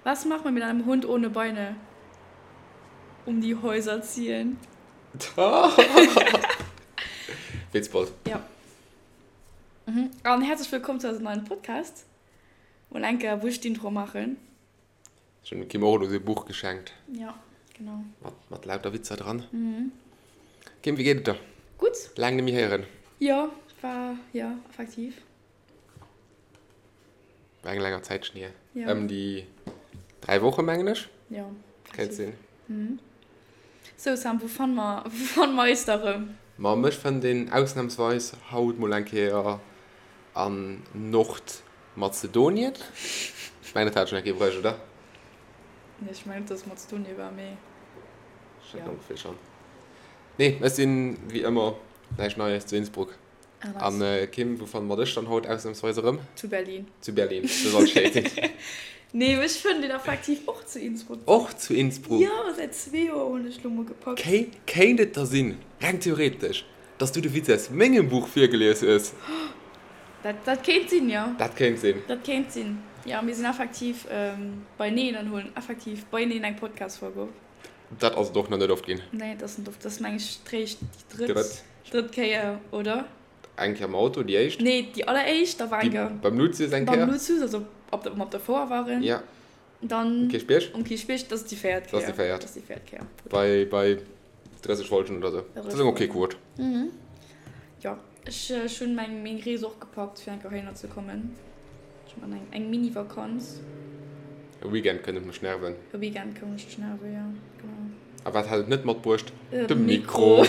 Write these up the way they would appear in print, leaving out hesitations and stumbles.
Was macht man mit einem Hund ohne Beine? Um die Häuser ziehen. Witzbold. Ja. Mhm. An herzlech wëllkomm zu eisem neien Podcast. Mol eng Kéier wou ech d'Intro maachen. Ech hunn dem Kim och elo säi Buch geschenkt. Ja, genau. Mat, mat lauter Witzer dran. Mhm. Kim, wéi geet et der? Gutt. Laang net méi héieren. Jo, war, jo, effektiv. War eng länger Zäitchen hier. Ja. Ëm déi 3 Woche mengen ech. Ja. Kéint sinn. Mhm. Sou Sam, wou fanne mer, wou fanne mer eis da rëm? Ma mech fënnt een ausnamsweis haut mol eng Kéier an Nordmazedonien. Ech mengen dat hat ech schon eng Kéier bruecht, oder? Nee, ech mengen net, dass et Mazedonien war, mee. Ech hat ongeféier schon. Nee, ech sinn wéi ëmmer, näischt Neies, zu Innsbruck. An Kim, wou fanne mer dech dann haut ausnamsweis erëm? Zu Berlin. Zu Berlin, do soll schéi sinn. Nee, mech fënnt een effektiv och zu Innsbruck. Och zu Innsbruck? Jo, säit zwee Joer hunn ech lo mol gepackt. Kéint et da sinn, reng theoretesch, dass du de Witz aus mengem Buch virgelies hues? Dat, dat kéint sinn, jo. Dat kéint sinn. Dat kéint sinn, jo. Mir sinn effektiv beineen an huelen effektiv beineen eng Podcast-Folg op. Dat ass et och nach net oft ginn. Nee, dat ass net oft. Dat ass, meng ech, d'réischt, déi drëtt. Drëtt Kéier, oder? Eng Kéier am Auto, déi éischt. Nee, déi alleréischt, da war eng Kéier. Beim Luzius eng Kéier. Beim Luzius, also op der, wou mer op der Fouer waren. Ja. Dann. Um Kierchbierg. Um Kierchbierg, dat ass déi véiert Kéier. Dat ass déi véiert. Dat ass déi véiert Kéier. Bei, bei 30 Folgen oder sou. Dat ass eng ok Quote. Mhm. Jo, ech, ech hunn meng, meng Rees och gepackt, fir eng Kéier heihinner ze kommen. Ech man eng, eng Mini-Vakanz. E Weekend kënnt et mech nerven. E Weekend koum ech dech nerven, jo, genau. A wat hat et net matbruecht? De Mikro.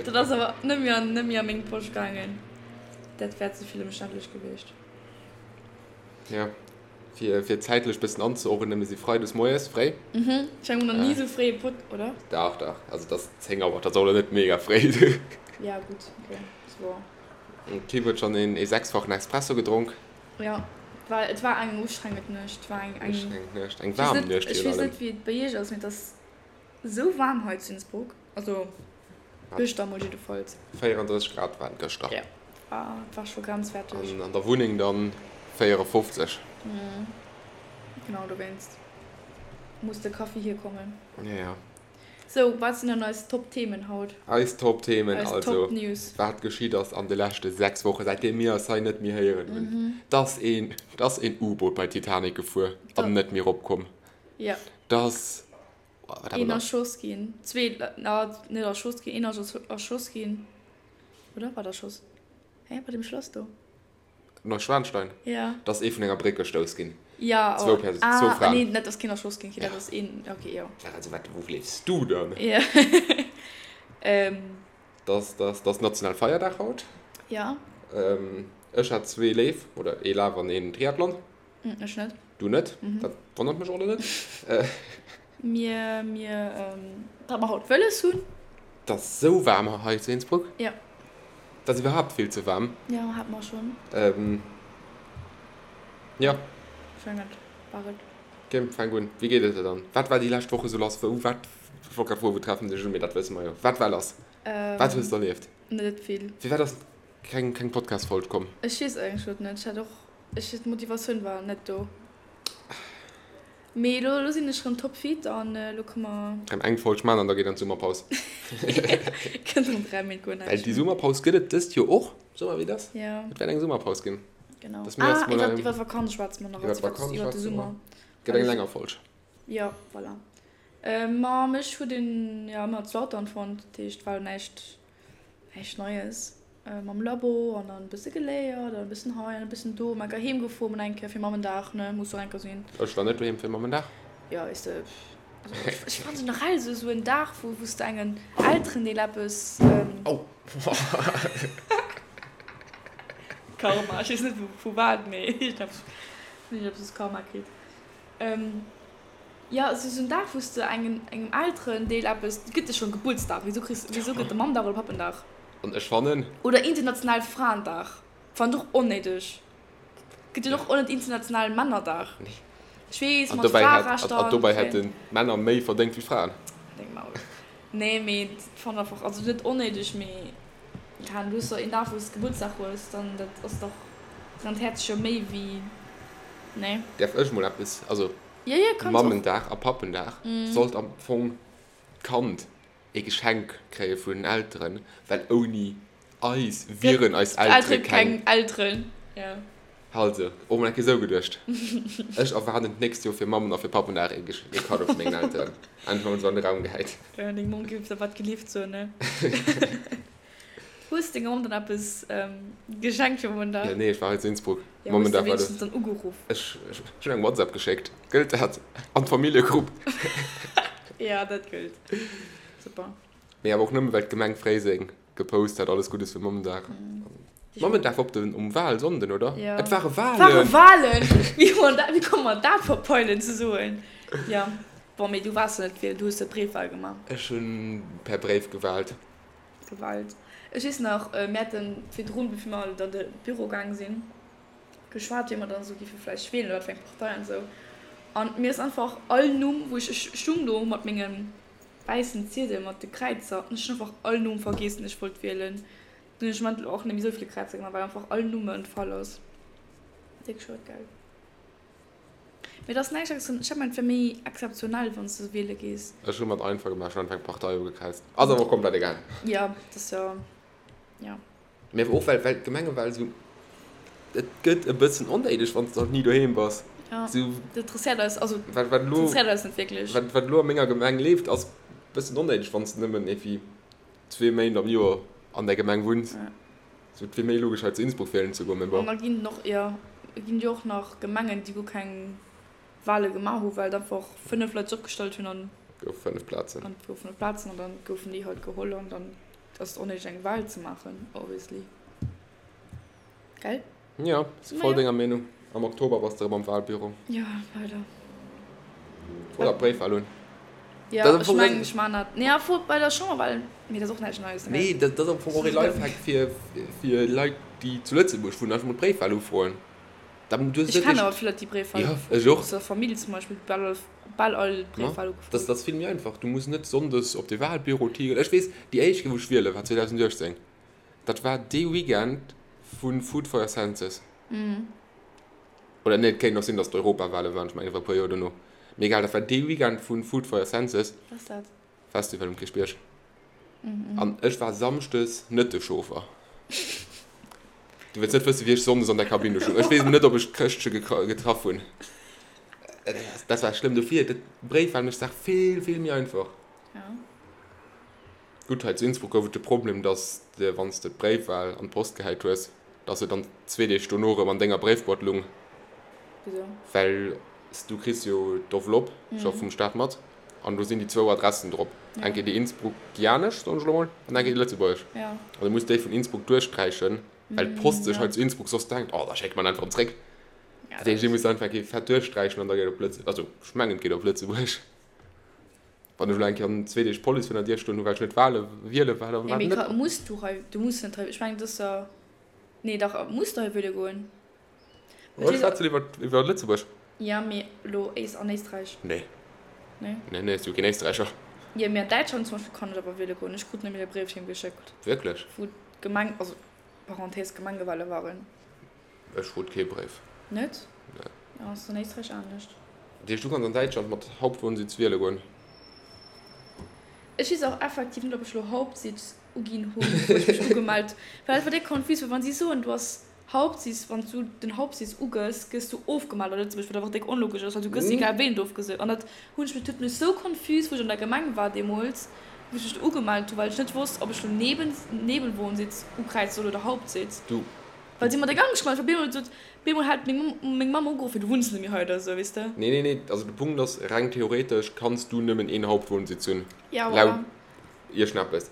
Dat ass awer net méi an, net méi a meng Posch gaangen. Dat wär ze vill ëmständlech gewiescht. Jo, fir, fir zäitlech bëssen anzeordnen, mir si freides moies fréi. Mhm, ech mengen, mir hunn nach ni esou fréi e Pod, oder? Dach, dach. Also et ass 10 Auer, dat ass och elo net mega fréi. Ja, gutt, okay, ass woer. D'Kim huet schonn een ee sechsfachen Espresso gedronk. Jo, well et war eng ustrengend Nuecht. Et war eng, eng. Ustrengend Nuecht, eng waarm Nuecht virun allem. Ech weess net, wéi et bei iech ass, mee et ass esou waarm hei zu Innsbruck. Also gëschter mol jiddefalls. 34 Grad waren et gëschter. Jo, et war scho grenzwäerteg. An an der Wunneng dann 54. Genau dowéinst muss de Kaffi hierkommen. Jo, jo. Sou, wat sinn dann eis Top-Themen haut? Eis Top-Themen, also wat geschitt ass an de leschte 6 Wochen, säitdeem mir eis hei net méi héieren hunn. 't ass een, 't ass een U-Boot bei Titanic gefuer an net méi eropkomm. Jo. 't ass, wat hat mer nach? Een erschoss ginn, zwee, na, net erschoss ginn, een ass erschoss ginn, oder? War et erschoss? Hä, bei deem Schlass do? Neuschwanstein? Ja. Da ass ee vun enger Bréck gestouss ginn. Ja, Zwou Perso ah, zwou Fraen. Nee, net, dass keen erschoss ginn, okay, dat ass een, okay, jo. Ja, also wat, wou liefs du dann? Ja. ähm. Dass, dass, dass national Feierdag haut. Ja. Ähm, ech hat zwee Leef, oder ee Laf an een Triathlon. Ech net. Du net? Mhm. Dat wonnert mech och elo net. Mir, mir, ähm, datt mer haut wëlles hunn. 't ass sou waarm hei zu Innsbruck. Ja. 't ass iwwerhaapt vill ze waarm. Jo, hat mer schonn. Ähm, jo. Ech mengen, dat war et. Kim, fänk un. Wéi geet et der dann? Wat war déi lescht Woch esou lass? Wou, wat, ech wollt grad froen, wou treffen sech un, mee dat wësse mer jo. Wat war lass? Wat hues de erlieft? Net vill. Firwat ass keng, keng Podcast-Folg komm? Ech weess eigentlech net. Ech hat och, ech, d'Motivatioun war net do. Mee elo sinn ech rëm topfit an elo kënne mer. Rëm eng Folg man an da geet an d'Summerpaus. Kënnt rëm 3 Méint guer näischt. Well déi Summerpaus gëtt et dëst Joer och, soe mer wéi et ass. Jo. Et wäert eng Summerpaus ginn. Genau. Dass mir ah, iwwer iwwer d'Vakanz schwätze mer nach. Iwwer d'Vakanz schwätze mer. Iwwer de Summer. Gëtt eng länger Folg. Jo, voilà. Ma mech huet een jo ëmmer zu Lautern fonnt, dat heescht war näischt näischt Neies. Mam Labo an dann e bësse geléiert an e bëssen hei an e bëssen do. Mä heem gefuer mol eng Kéier fir Mammendag, ne, muss och eng Kéier sinn. Ech war net doheem fir Mammendag. Jo, weess de, also ech fannen generell esou esou en Dag, wou wou s de engen Elterendeel eppes. Oh! Karma, ech weess net vu wat, mee iergendeppes hunn ech eppes Karma kritt. Jo, et ass esou en Dag, wou s de engem engem Elterendeel eppes, et gëtt jo schonn Gebuertsdag, wisou kriss, wisou gëtt de Mammdag oder Pappendag? An ech fannen. Oder internationale Fraendag. Fannen ech och onnéideg. Gëtt jo och net internationalen Männerdag. Nee. Ech weess, mat Fraerechter an. An dobäi hätten d'Männer méi verdéngt wéi d'Fraen. Deng Maul. Nee, mee fannen einfach, also net onnéideg, mee keen Ahnung, du hues doch een Dag wou s Gebuertsdag hues, dann dat ass doch, rennt d'Häerz jo méi wéi, nee? Däerf ech mol eppes, also. Ja, ja, kanns och. Mammendag a Pappendag sollt am Fong d'Kand ee Geschenk kréie vun den Elteren, well ouni eis wieren eis Eltere keng Elteren. Ja. Also, och mol eng Kéier esou geduecht. Ech erwaarden d'nächst Joer fir Mammen a fir Pappendag ee Kaddo vu mengen Elteren. Einfach mol esou an de Raum gehäit. Ja, deng Mamm géif der wat gelift soen, ne? Hues denger Mamm dann eppes geschenkt fir Mammendag? Ja, nee, ech war hei zu Innsbruck. Ja, hues de wéinstens dann ugeruff? Ech hunn eng WhatsApp geschéckt. Gëllt dat? An d'Familljegrupp. Ja, dat gëllt. Super. Mee awer och nëmme well d'Gemeng Fréiseng gepost hat, alles Guddes fir Mammendag. Mammendag war op den, um Wahlsonnden, oder? Ja. Et ware Wahlen! Ware Wahlen! Wéi hu mer dat, wéi komme mer dat verpeilen ze soen? Ja. Bon, mee du waars jo net wielen, du hues jo d'Bréifwahl gemaach. Ech hunn per Bréif gewaalt. Gewalt. Ech weess nach, mir haten virdrun, bevir mer an de Büro gaang sinn, geschwat, wéi mer dann esou géife vläicht wielen oder wat fir eng Partei an esou. An mir ass einfach all Numm, wou ech, ech stung do mat mengem wäissen Ziedel mat de Kräizer an ech hunn einfach all Numm vergiess, deen ech wollt wielen. Dunn hunn ech am Endeffekt och net méi esou vill Kräizer gemaach, well einfach all Numm mer entfall ass. Déck schued, gell? Mee et ass näischt extra, ech hat mengt et wär méi exzeptionell wann s de wiele gees. Ech hu mer et einfach gemaach, ech hunn einfach eng Partei ugekräizt. Ass awer och komplett egal. Jo, et ass jo, jo. Mee awer och well, well d'Gemengewal esou, et gëtt e bëssen onnéideg wann s de halt ni doheem bass. Jo, dat interesséiert eis, also wat, wat elo, interesséiert eis net wierklech. Wat, wat elo a menger Gemeng leeft ass e bëssen onnéideg wann s de nëmmen iergendwéi zwee Méint am Joer an där Gemeng wunns. Sou, et wier méi logesch hei zu Innsbruck wielen ze goen, mee bon. An da ginn et och, jo, et ginn jo och nach Gemengen, déi guer keng Wale gemaach hunn, well et einfach 5 Leit sech opgestallt hunn an. Gouf 5 Plazen. An et goufen 5 Plazen an dann goufen déi halt geholl an dann ass et onnéideg eng Wal ze maachen, obviously. Gell? Jo, si voll denger Meenung. Am Oktober bass de erëm am Walbüro. Jo, leider. Fro der Bréifwal un. Jo, ech mengen, ech man dat. Nee, fro bei der Chamberwal, mee dat ass och näischt Neies. Nee, dat ass am Fong och ee Lifehack fir, fir Leit, déi zu Lëtzebuerg wunnen, einfach mol d'Bréifwal ufroen. Dann, du hues Ech kennen awer vill Leit, déi Bréifwal. Jo, ech och. Aus der Famill zum Beispill, bal all, bal all d'Bréifwal ugefrot. Dat ass vill méi einfach. Du muss net sonndes op de Walbüro tigelen. Ech weess, déi éischt Kéier, wou ech wiele war 2018. Dat war dee Weekend vu Food for your Senses. Oder nee, et kéint och sinn, datt d'Europawale waren, ech mengen, et war e puer Joer dono. Mee egal, dat war dee Weekend vu Food for your Senses. Wat ass dat? Festival um Kierchbierg. An ech war samschdes net de Chauffer. Du wëlls net wëssen, wéi ech sonndes an der Kabinn do stoung. Ech weess net, ob ech d'Chrëschtche getraff hunn. Dat war schlëmm. Dofir, d'Bréifwal mécht d'Saach vill, vill méi einfach. Gutt, hei zu Innsbruck gouf et de Problem, dass de, wann s de d'Bréifwal an d'Post gehäit hues, dass se dann zwee Deeg dono erëm an denger Bréifboîte lung. Wisou? Well s du kriss jo d'Enveloppe scho vum Staat mat an do sinn déi zwou Adressen drop, eng Kéier déi innsbruckianesch, soen ech elo mol, an eng Kéier déi lëtzebuergesch. An du muss déi vun Innsbruck duerchsträichen, well d'Post sech hei zu Innsbruck soss denkt, oh, da schécke mer en einfach erëm zréck. Dat heescht, déi muss einfach eng Kéier fett duerchsträichen an da geet et op Lëtze-, also ech mengen, et geet op Lëtzebuerg. Wann ech elo eng Kéier an zwee Deeg d'Police virun der Dier stoen hu well ech net wale wiele war, dann war et net. Muss du hei, du muss net hei, ech mengen et ass jo, nee dach muss du hei wiele goen? Ech schwätzen iwwer iwwer Lëtzebuerg. Jo mee elo Éis an Éisträich? Nee. Nee? Nee nee, ech si jo keen Éisträicher. Jo mee an Däitschland zum Beispill kann ech awer wiele goen, ech krut nämlech e Bréif heem geschéckt. Wierklech? Wou d'Gemeng, also Parenthèse Gemengewale waren. Ech krut kee Bréif. Net? Nee. Ja, ass an Éisträich anescht. Dat heescht, du kanns an Däitschland mat Hauptwohnsitz wiele goen? Ech weess och effektiv net, ob ech elo Hauptsitz uginn hunn, wou ech mech ugemellt. Well et war déck confus, well wann si soen, du ass Hauptsitz, wann s du den Hauptsitz ugëss, gëss du ofgemellt a Lëtzebuerg, wat einfach déck onlogesch ass, well du gëss egal wéi net ofgese. An dat hunn ech mech, dat huet mech sou confus, wou ech an der Gemeng war deemools, wou ech mech do ugemellt hunn, well ech net wosst, ob ech elo Neben, Nebenwohnsitz ukräize soll oder Hauptsitz. Du. Well si mat der Gang geschwat huet, op eemol sot, op eemol hat meng meng Mamm ugeruff, fir du wunns net méi hei oder esou, weess de. Nee, nee, nee, also de Punkt ass, reng theoretesch kanns du nëmmen een Hauptwohnsitz hunn, Ja, laut voilà. iergendeppes.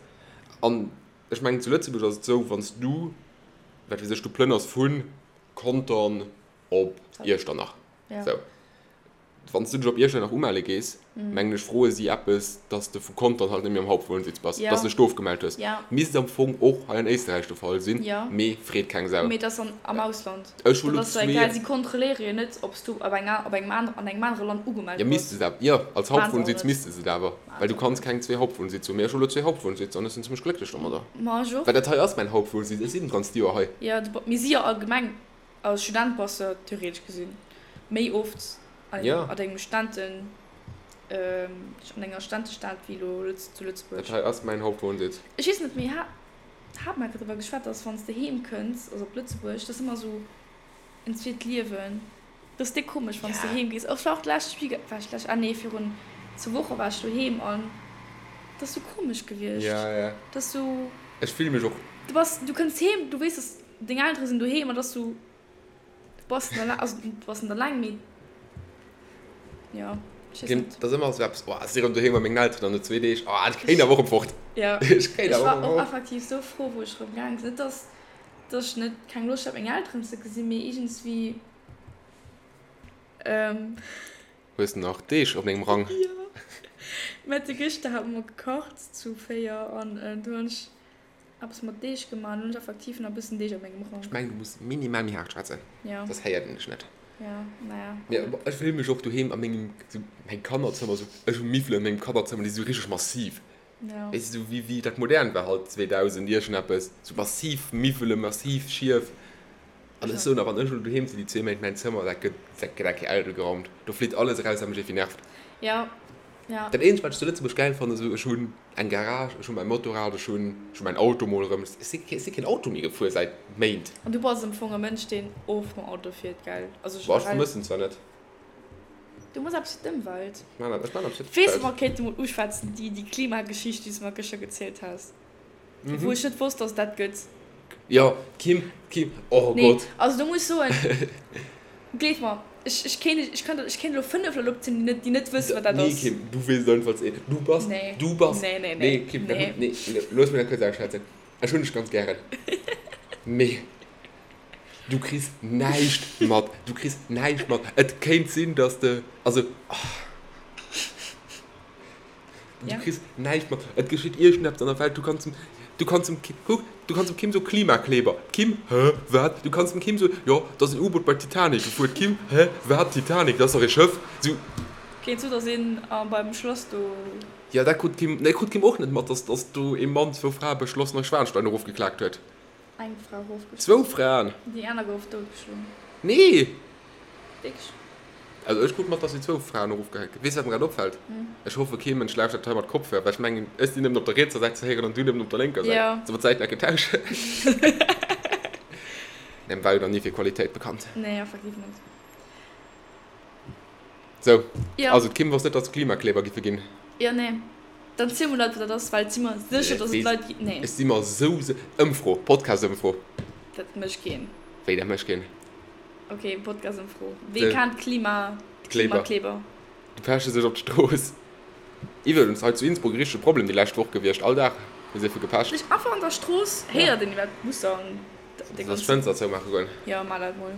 An ech mengen, zu Lëtzebuerg ass et esou, wann s du, wat weess ech, du plënners vu Contern op Iechternach, Ja. sou. Wann s du dech op Iechternach umelle gees, mengen ech, froe si eppes, dass de vu Contern halt net méi am Hauptwohnsitz bass, dass du dech do ofgemellt hues. Misst am Fong och hei an Éisterräich de Fall sinn, mee freet keng Sau. Mee et ass am Ausland. Ech hu lo zwee. Si kontrolléiere jo net, ob s du op engem an engem anere Land ugemellt bass. Jo, misste se awer. Jo, als Hauptwohnsitz misste se et awer, well du kanns keng zwee Hauptwohnsitz hunn. Mee ech hu lo zwee Hauptwohnsitz an ech sinn zimmlech glécklech domadder. Ma ech och. Well dat hei ass mäin Hauptwohnsitz, ech sinn d'ganzt Joer hei. Jo, mir si jo allgemeng Als Student bass de theoretesch gesinn méi oft. An Ja. an engem Stenten, an enger Stentestad wéi elo Lëtz, zu Lëtzebuerg. Dat hei ass mäin Hauptwohnsitz. Ech weess net, mee ha, hat mer driwwer geschwat, dass wann s de heem kënns, also op Lëtzebuerg, dat ass ëmmer esou en zweet Liewen. Dat ass déck komesch, wann s de Ja. heem gees. Och war och d'lescht Week, war ech d'lescht, ah nee, virun zwou Woche war ech doheem an dat ass sou komesch gewiescht. Ja, ja. Dat ass sou. Ech fille mech och. Du bass, du kënns heem, du weess, dass deng Eltere sinn doheem an dat ass sou. Du bass net alleng, also du bass net alleng, mee jo, ech weess net. Dat ass ëmmer esou eppes, oh, ech si erëm doheem bei mengen Elteren an no zwee Deeg, oh, ech kéint awer och erëm fort. Jo, Ech kéint ech awer war och erëm och fort. effektiv sou frou, wou ech erëm gaange sinn. Net, dass, dass ech net keng Loscht hat, meng Elteren ze gesinn, mee iergendswéi, ähm. Hues de nach Deeg op dengem Rang? Jo, Mette gëschter hate mer gekacht zu 4 an du hunn ech Eppes mat Deeg gemaach, an hunn ech effektiv nach e bëssen Deeg a mengem Rang. Ech mengen du muss minimal méi haart schwätzen, Ja. soss héiert een dech net. Ja, naja. Mee ech fillen mech och doheem a mengem, sou mäin Kannerzëmmer, sou ech hu Miwwelen an mengem Kannerzëmmer, déi si sou richteg massiv. Ja. Weess de, sou wéi wéi dat modern war halt 2000 iergendeppes, sou massiv Miwwelen, massiv Schief. An ech soen, a wann ech elo doheem sinn déi zwee Méint, mäin Zëmmer, dat gëtt dat gëtt eng Kéier ausgeraumt, do flitt alles eraus wat mech iergendwéi nervt. Ja, ja. Dat eenzegt wat ech zu Lëtzebuerg gäil fannen, sou ech hunn Eng Garage, ech hu mäi Motorrad, ech hunn ech hu mäin Auto mol erëm. Ech si ech si keen Auto méi gefuer säit Méint. An du bass am Fong e Mënsch, deen oft mam Auto fiert, gell? Also Boah, ech generell. vermëssen zwar net. Du muss eppes fir d'Ëmwelt. Ech maan ech maan eppes fir Weess de, d'Ëmwelt. mer kéinte mol uschwätzen, déi déi Klimageschicht, déi s de mer gëschter gezielt has, wou ech net wosst, dass et dat gëtt. Jo, Kim, Kim, oh Nee, Gott. also do muss ech soen, gleef mer, ech, ech kéint, ech kann, ech kéint elo 5 Leit opzielen, déi net, déi net wëssen, wat dat Nee, ass. Kim, du weess et einfach ze. Du bass, Nee. du bass, Nee, nee, nee, nee. Kim, dat, Nee. nee, looss mech dat kuerz ausschwätzen. Ech hunn dech ganz gären, mee du kriss näischt mat, du kriss näischt mat. Et kéint sinn, dass de, also, oh. Du kriss näischt mat. Et geschitt iergendeppes an der Welt. Du kanns dem, du kanns dem Kim, kuck, du kanns dem Kim soen, Klimakleber. D'Kim, Hä, wat? Du kanns dem Kim soen, jo, et ass en U-Boot bei d'Titanic gefuer. D'Kim, Hä, wat? Titanic, dat ass dach ee Schëff. Sou. Kéint sou, dass een beim Schloss do. Jo, dat krut d'Kim, nee, krut d'Kim och net mat, dass, dass do ee Mann zwou Frae bei Schloss Neuschwanstein erofgeklaakt huet. Eng Fra erofgeschloen. Zwou Fraen. Déi aner gouf doutgeschloen. Nee! Wierklech? Also ech krut mat, dass si zwou Fraen erofgehäit ginn. Weess wat mer grad opfält? Ech hoffe kee Mënsch lauschtert hei mat Kopfhörer, well ech mengen ech sinn nëmmen op der rietser Säit ze héieren an du nëmmen op der lénker Säit. Jo. Solle mer d'Säiten enke tauschen? Nee, war jo nach ni fir Qualitéit bekannt. Nee, effektiv net. Sou, Jo. also d'Kim wosst net, dass et Klimakleber giffe ginn. Jo, nee. Dann ziel mol Leit wat dat ass, well et si mer sécher, dass et Leit gi. Nee. Ech si mer sou se. Ëmfro, Podcast-Ëmfro. Dat mécht keen. Wéi, dat mécht keen? Ok, Podcast-Ëmfro. Wee kennt Klima, Kleber. Klimakleber? Déi peche sech op d'Strooss. Iwwregens hei zu Innsbruck e richtege Problem déi lescht Woch gewiescht. All Dag hu se vu gepecht. Sech einfach an der Strooss héiert een iwwer d'Busser an de Soll ech ganzen. d'Fënster zoumaache goen? Jo, maach dat mol.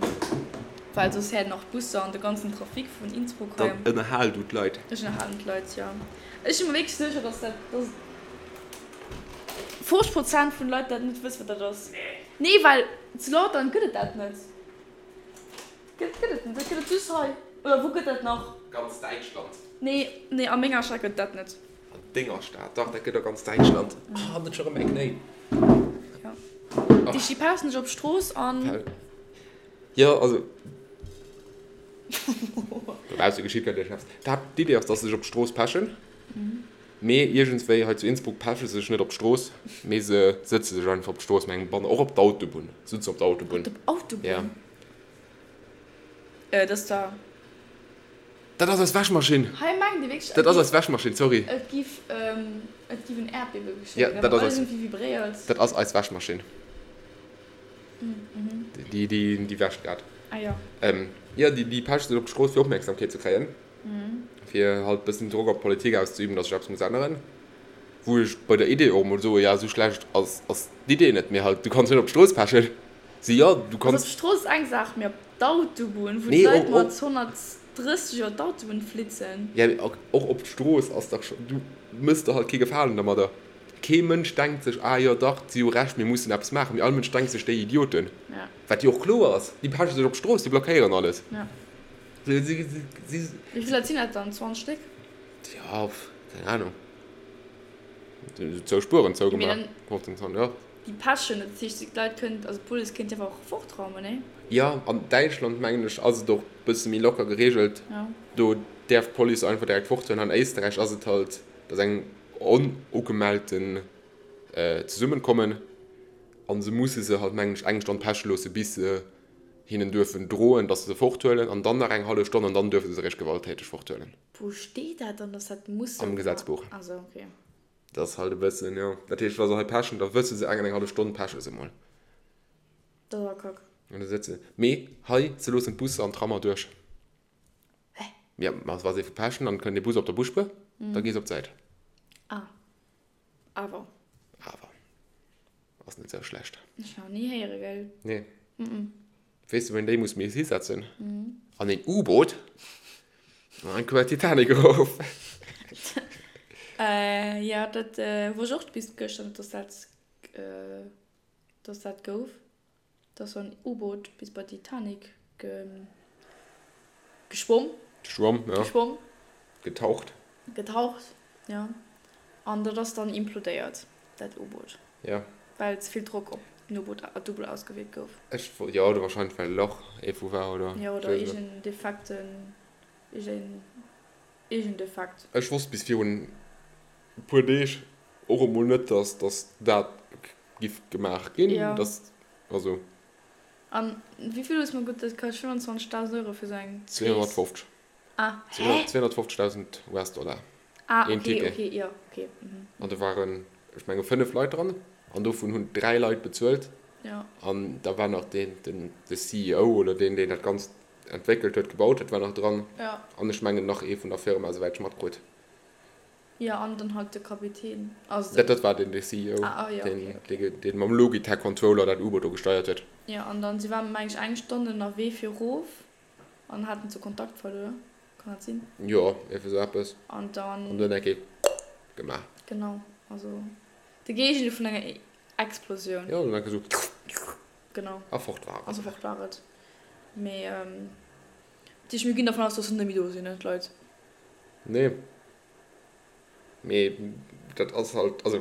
Well soss héiert een och d'Busser an de ganzen Trafic vun Innsbruck hei. Dann ënnerhal du d'Leit. Ech ënnerhalen d'Leit, jo. Ech si mer wierklech sécher, dass dat, dass 50 Prozent vun de Leit dat net wëssen, wat dat ass. Nee, well zu Lautern gëtt et dat net. Gëtt, gëtt et net. Dat gëtt et just hei. Oder wou gëtt dat nach? Ganz Däitschland. Nee, nee, a menger Stad gëtt et dat net. An denger Stad? Dach, dat gëtt a ganz Däitschland. Ah, net scho rëm eng Knéi. Jo. Déi sti pausen sech op d'Strooss an. Jo, also. Dobausse geschitt grad iergendeppes. D'Haaptidee ass, dass se sech op d'Strooss pechen. Mee iergendswéi hei zu Innsbruck peche se sech net op d'Strooss, mee se sëtze sech einfach op d'Strooss mat engem Banner, och op d'Autobunn. Se sëtzen op d'Autobunn. Op d'Autobunn? Ja. Dat ass da. Dat ass eis Wäschmaschinn! Hei mengt ee wierklech, Dat ass eis Wäschmaschinn, sorry. et giff, et giff en Äerdbiewe Ja, geschéien, dat well ass alles eis. iergendwéi vibréiert. Dat ass eis Wäschmaschinn. Déi, déi, déi wäscht grad. Ah jo. Jo, déi, déi pecht sech op d'Strooss fir Opmierksamkeet ze kréien. Fir halt bëssen Drock op d'Politik auszeüben, dass sech eppes muss änneren. Wou ech bei der Idee och emol soe, ja, esou schlecht ass, ass d'Idee net, mee halt, du kanns net op d'Strooss pechen. Si, jo, du Also kanns. op d'Strooss ass eng Saach, mee op d'Autobunn, wou Nee, d'Leit och, mat och. 130 iwwer d'Autobunn flitzen. Ja, mee och, och op d'Strooss ass dach scho, du mëss der halt kee Gefalen dermadder. Kee Mënsch denkt sech, ah jo dach, si hu Recht, mir mussen eppes maachen. Mee all Mënsch denkt sech, déi Idioten. Ja. Wat jo och kloer ass, déi peche sech op d'Strooss, déi blockéieren alles. Ja. Si, si, si. Wéi vill Leit sinn dat dann? 20 Stéck? Ja, pff, keng Ahnung. Zwou Spueren Mee zougemaach. dann. 15, 20, ja. Déi pechen, dat heescht d'Leit kënnt, also d'Police kéint déi einfach och fortraumen, nee? Jo, an Däitschland mengen ech ass et och bësse méi locker gereegelt. Do däerf d'Police einfach direkt forthuelen. An Éisterräich ass et halt, dass eng onugemellten Zesummenkommen an se musse se halt mengen ech eng Stonn peche loosse bis se hinnen duerfen droen, dass se se forthuelen an dann nach eng hallef Stonn an dann duerfe se se eréischt gewalttäteg forthuelen. Wou steet dat dann, dass dat muss sou Am Gesetzbuch. Ah sou, okay. Dat ass halt e bëssen, jo. Dat heescht, wa se hei pechen, da wësse se eng an eng hallef Stonn peche se mol. Dat ass awer kack. An da sëtze. Mee hei, se loossen d'Busser an d'Trammer duerch. Hä? Jo, ma wa se pechen, dann kënnt ee Bus op der Busspuer, da gees op d'Säit. Ah. Awer. Awer. Ass net sou schlecht. Ech nach ni héiere, gell? Nee. Weess de wou een déi muss méi hisetzen? An een U-Boot an eng Kuer Titanic erof. Jo, dat wosst ech och bis gëschter net, dass dat, dass dat gouf. Dass sou en U-Boot bis bei d'Titanic geschwomm. Geschwomm, ja. Geschwomm. Getaucht. Getaucht, ja. An dat ass dann implodéiert, dat U-Boot. Ja. Well ze vill Drock op den U-Boot, d'U-Boot ausgewierkt gouf. Ech, jo, oder wahrscheinlech well e Lach iergendwou war, oder? Jo, oder iergend Defekten, iergend, iergend Defekt. Ech wosst bis virun e puer Deeg och emol net, dass, dass dat giff gemaach ginn. Ja. Dass, also. An wéi vill hues mer gutt, dat kascht 25.000 Euro fir sou eng Rees? 250. Ah, hä? 250.000 US-Dollar. Ah, Een okay, Ticket. okay, jo, okay. Mhm. An do waren, ech menge 5 Leit dran an dovun hunn 3 Leit bezuelt. Ja. An da war nach deen, den, de CEO oder deen, deen dat Ganzt entwéckelt huet, gebaut huet, war nach dran. Ja. An ech mengen nach ee vun der Firma, souwäit ech matkrut. Jo, an dann halt de Kapitän, also den. Dat war den, de CEO, ah, ah, ja, okay, okay. deen, deen mam Logitech Controller dat U-Boot do gesteiert huet. Jo, an dann, si waren, meng ech, eng Stonn ënnerwee fir erof an haten sou Kontakt verluer, kann dat sinn? Jo, ierfir sou eppes. An dann. An dunn eng Kéier gemaach. Genau, also de Géigendeel vun enger Explosioun. Jo, dunn eng Kéier sou. Genau. A fort war et. Also fort war et. Mee, dat heescht, mir ginn dervun aus, dass se net méi do sinn, ne, d'Leit? Nee. Mee dat ass halt, also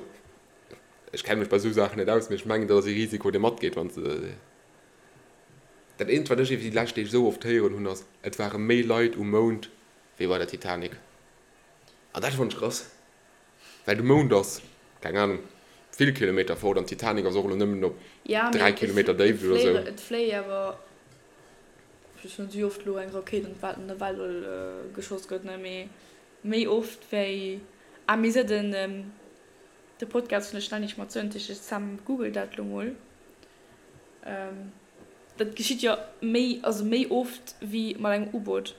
ech kenne mech bei esou Saachen net aus, mee ech mengen dat ass ee Risiko dee matgeet wann s de. Dat eent wat ech iwwer déi lescht Deeg esou oft héieren hunn ass, et ware méi Leit um Mound wéi bei der Titanic. An dat fonnt ech krass, well de Mound ass, keng Anung, vill Kilometer fort an d'Titanic ass och elo nëmmen op 3 Kilometer Déift oder esou. Et fléie awer Just net wéi oft elo eng Rakéit an d'Welt an de Weltall geschoss gëtt, ne, mee méi oft wéi, ah mee se den de Podcast vun der Ständig mat Söntig, ech Sam googelt dat elo mol, dat geschitt jo méi, also méi oft wéi mat engem U-Boot,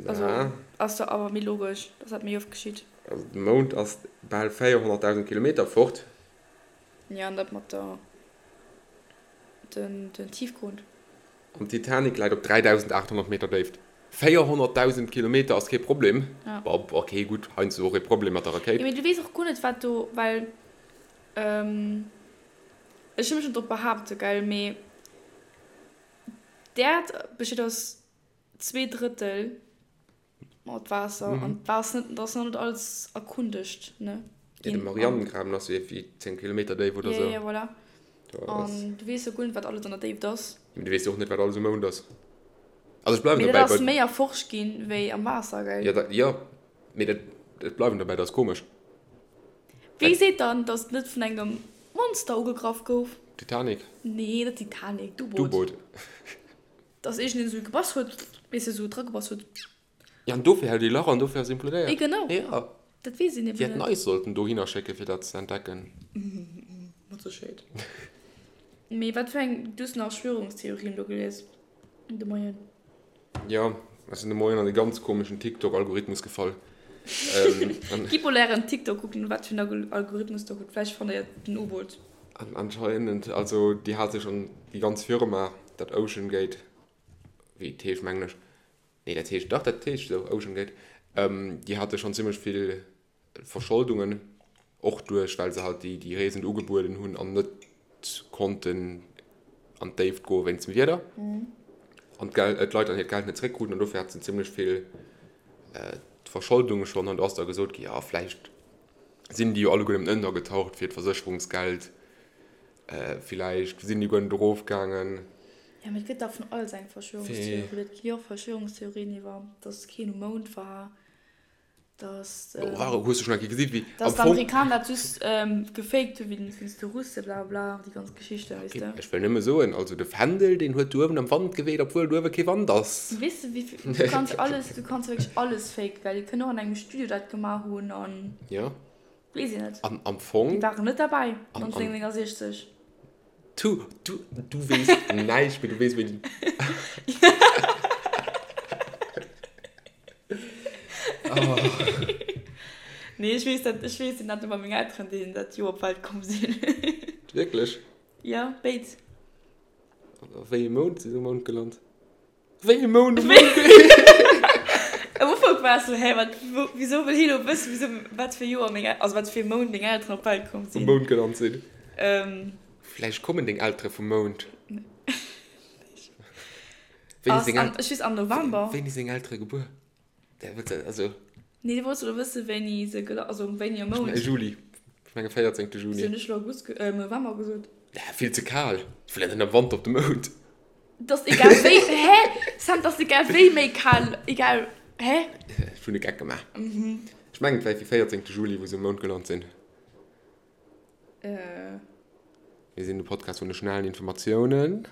also ass jo awer méi logesch, dass dat méi oft geschitt. Also de Mound ass bal 400.000 Kilometer fort. Jo, an dat mat der. Den Tiefgrund. An d'Titanic läit op 3.800 Meter Déift. 400.000 Kilometer ass kee Problem. Ja. Bon, ok, gutt, heiansdo och ee Problem mat der Rakéit. Jo, mee du weess och guer net, wat do, well ech wëll mech net drop behaapten, gell, mee d'Äerd besteet aus 2 Drëttel Mat Waasser an dat ass net, dat ass nach net alles erkundegt, ne? Ja, de Marianengraben ass jo iergendwéi 10 Kilometer déif oder sou. Ja, ja, voilà. An du weess jo guer net, wat alles an der Déift ass. Mee du weess jo och net, wat alles um Mound ass. Also ech bleiwen dobäi. Mee dat ass méi erforscht ginn, wéi am Waasser, gell? Ja, dat, jo. Mee dat, ech bleiwen dobäi, dat ass komesch. Wie seet dann, datt et net vun engem Monster ugegraff gouf? Titanic? Nee, net d'Titanic, d'U-Boot. D'U-Boot. Dass iergendeen esou gebass huet, weess de, esou dragebass huet. Ja, an dofir hält ee Lach an dofir ass implodéiert. Eh genau. Ja. Dat weess een eben net. Déi hätten eis sollten dohinner schécken, fir dat ze entdecken. Mat Sécherheet. Mee wat fir eng, du hues nach Verschwörungstheorien do gelies de Moien? Jo, ech sinn de Moien an e ganz komeschen TikTok-Algorithmus gefall. Gitt mol ären TikTok kucken, wat fir en Algorithmus der hutt. Vläicht fannt der jo den U-Boot. An anscheinend, also déi hat sech an déi ganz Firma, dat OceanGate, wéi et heescht mengen ech, nee dat heescht, dach dat heescht esou, OceanGate, déi hate schonn zimmlech vill Verscholdungen, och duerch well se halt déi déi Reesen ugebueden hunn an net konnten an d'Déift goe wéinst dem Wieder an d'Geld, d'Leit dann hiert Geld net zeréckkruten an dofir hat se zimmlech vill Verscholdunge schonn an do ass da gesot gi, jo vläicht. Sinn déi jo alleguer nëmmen ënnergetaucht fir d'Versécherungsgeld. Villäicht sinn déi guer net erofgaangen. Jo, mee et gëtt dach vun alles eng Verschwörungstheorie. Et gi jo och Verschwörungstheorien iwwer, datt keen um Mound war, datt. Oh, hues du schonn eng Kéier gesi wéi am Fong. Datt d'Amerikaner dat just gefaked hu wéinst de Russe, bla bla, déi ganz Geschichten, weess de. Ech wëll nëmme soen, also de Fändel, deen huet do uewen am Wand geweet, obwuel do uewe kee Wand ass. Weess de, wéi vill, du kanns alles, du kanns wierklech alles faken, well déi kënnen och an engem Studio dat gemaach hunn an. Jo. Weess een net. An am Fong. Déi waren net derbäi 1969. Du, du, du weess näischt, mee du weess wéi. Nee, ech weess dat, ech weess dat iwwer meng Elteren, déi dat Joer op d'Welt komm sinn. Wierklech? Jo, béid. A wéi ee Mount si se um Mound gelant? Wéi e Mound um Mound? Am Ufank war ech sou, hä, wat, wou, wisou wëll hie lo wëssen, wisou, wat fir Joer meng, also wat fir e Mount meng Elteren op d'Welt komm sinn? Um Mound gelant sinn. Vläicht kommen deng Eltere vum Mound. Wéini seng El-. Ech weess, am November. Wéini seng Eltere gebuer? Also. Nee, du wollts elo wëssen, wéini se gela-, also wéini am Mount. Juli. Ech menge 14. Juni. Wéi hunn ech elo August, November gesot? Ja, vill ze kal. Ech wëll net am Wanter op de Mound. Dass egal wéi, hä? Sam, dass egal wéi méi kal, egal, hä? Ech hunn e Geck gemaach. Ech mengen, et war fir 14. Juli, wou se um Mound gelant sinn. Mir sinn de Podcast vun de schnellen Informatiounen.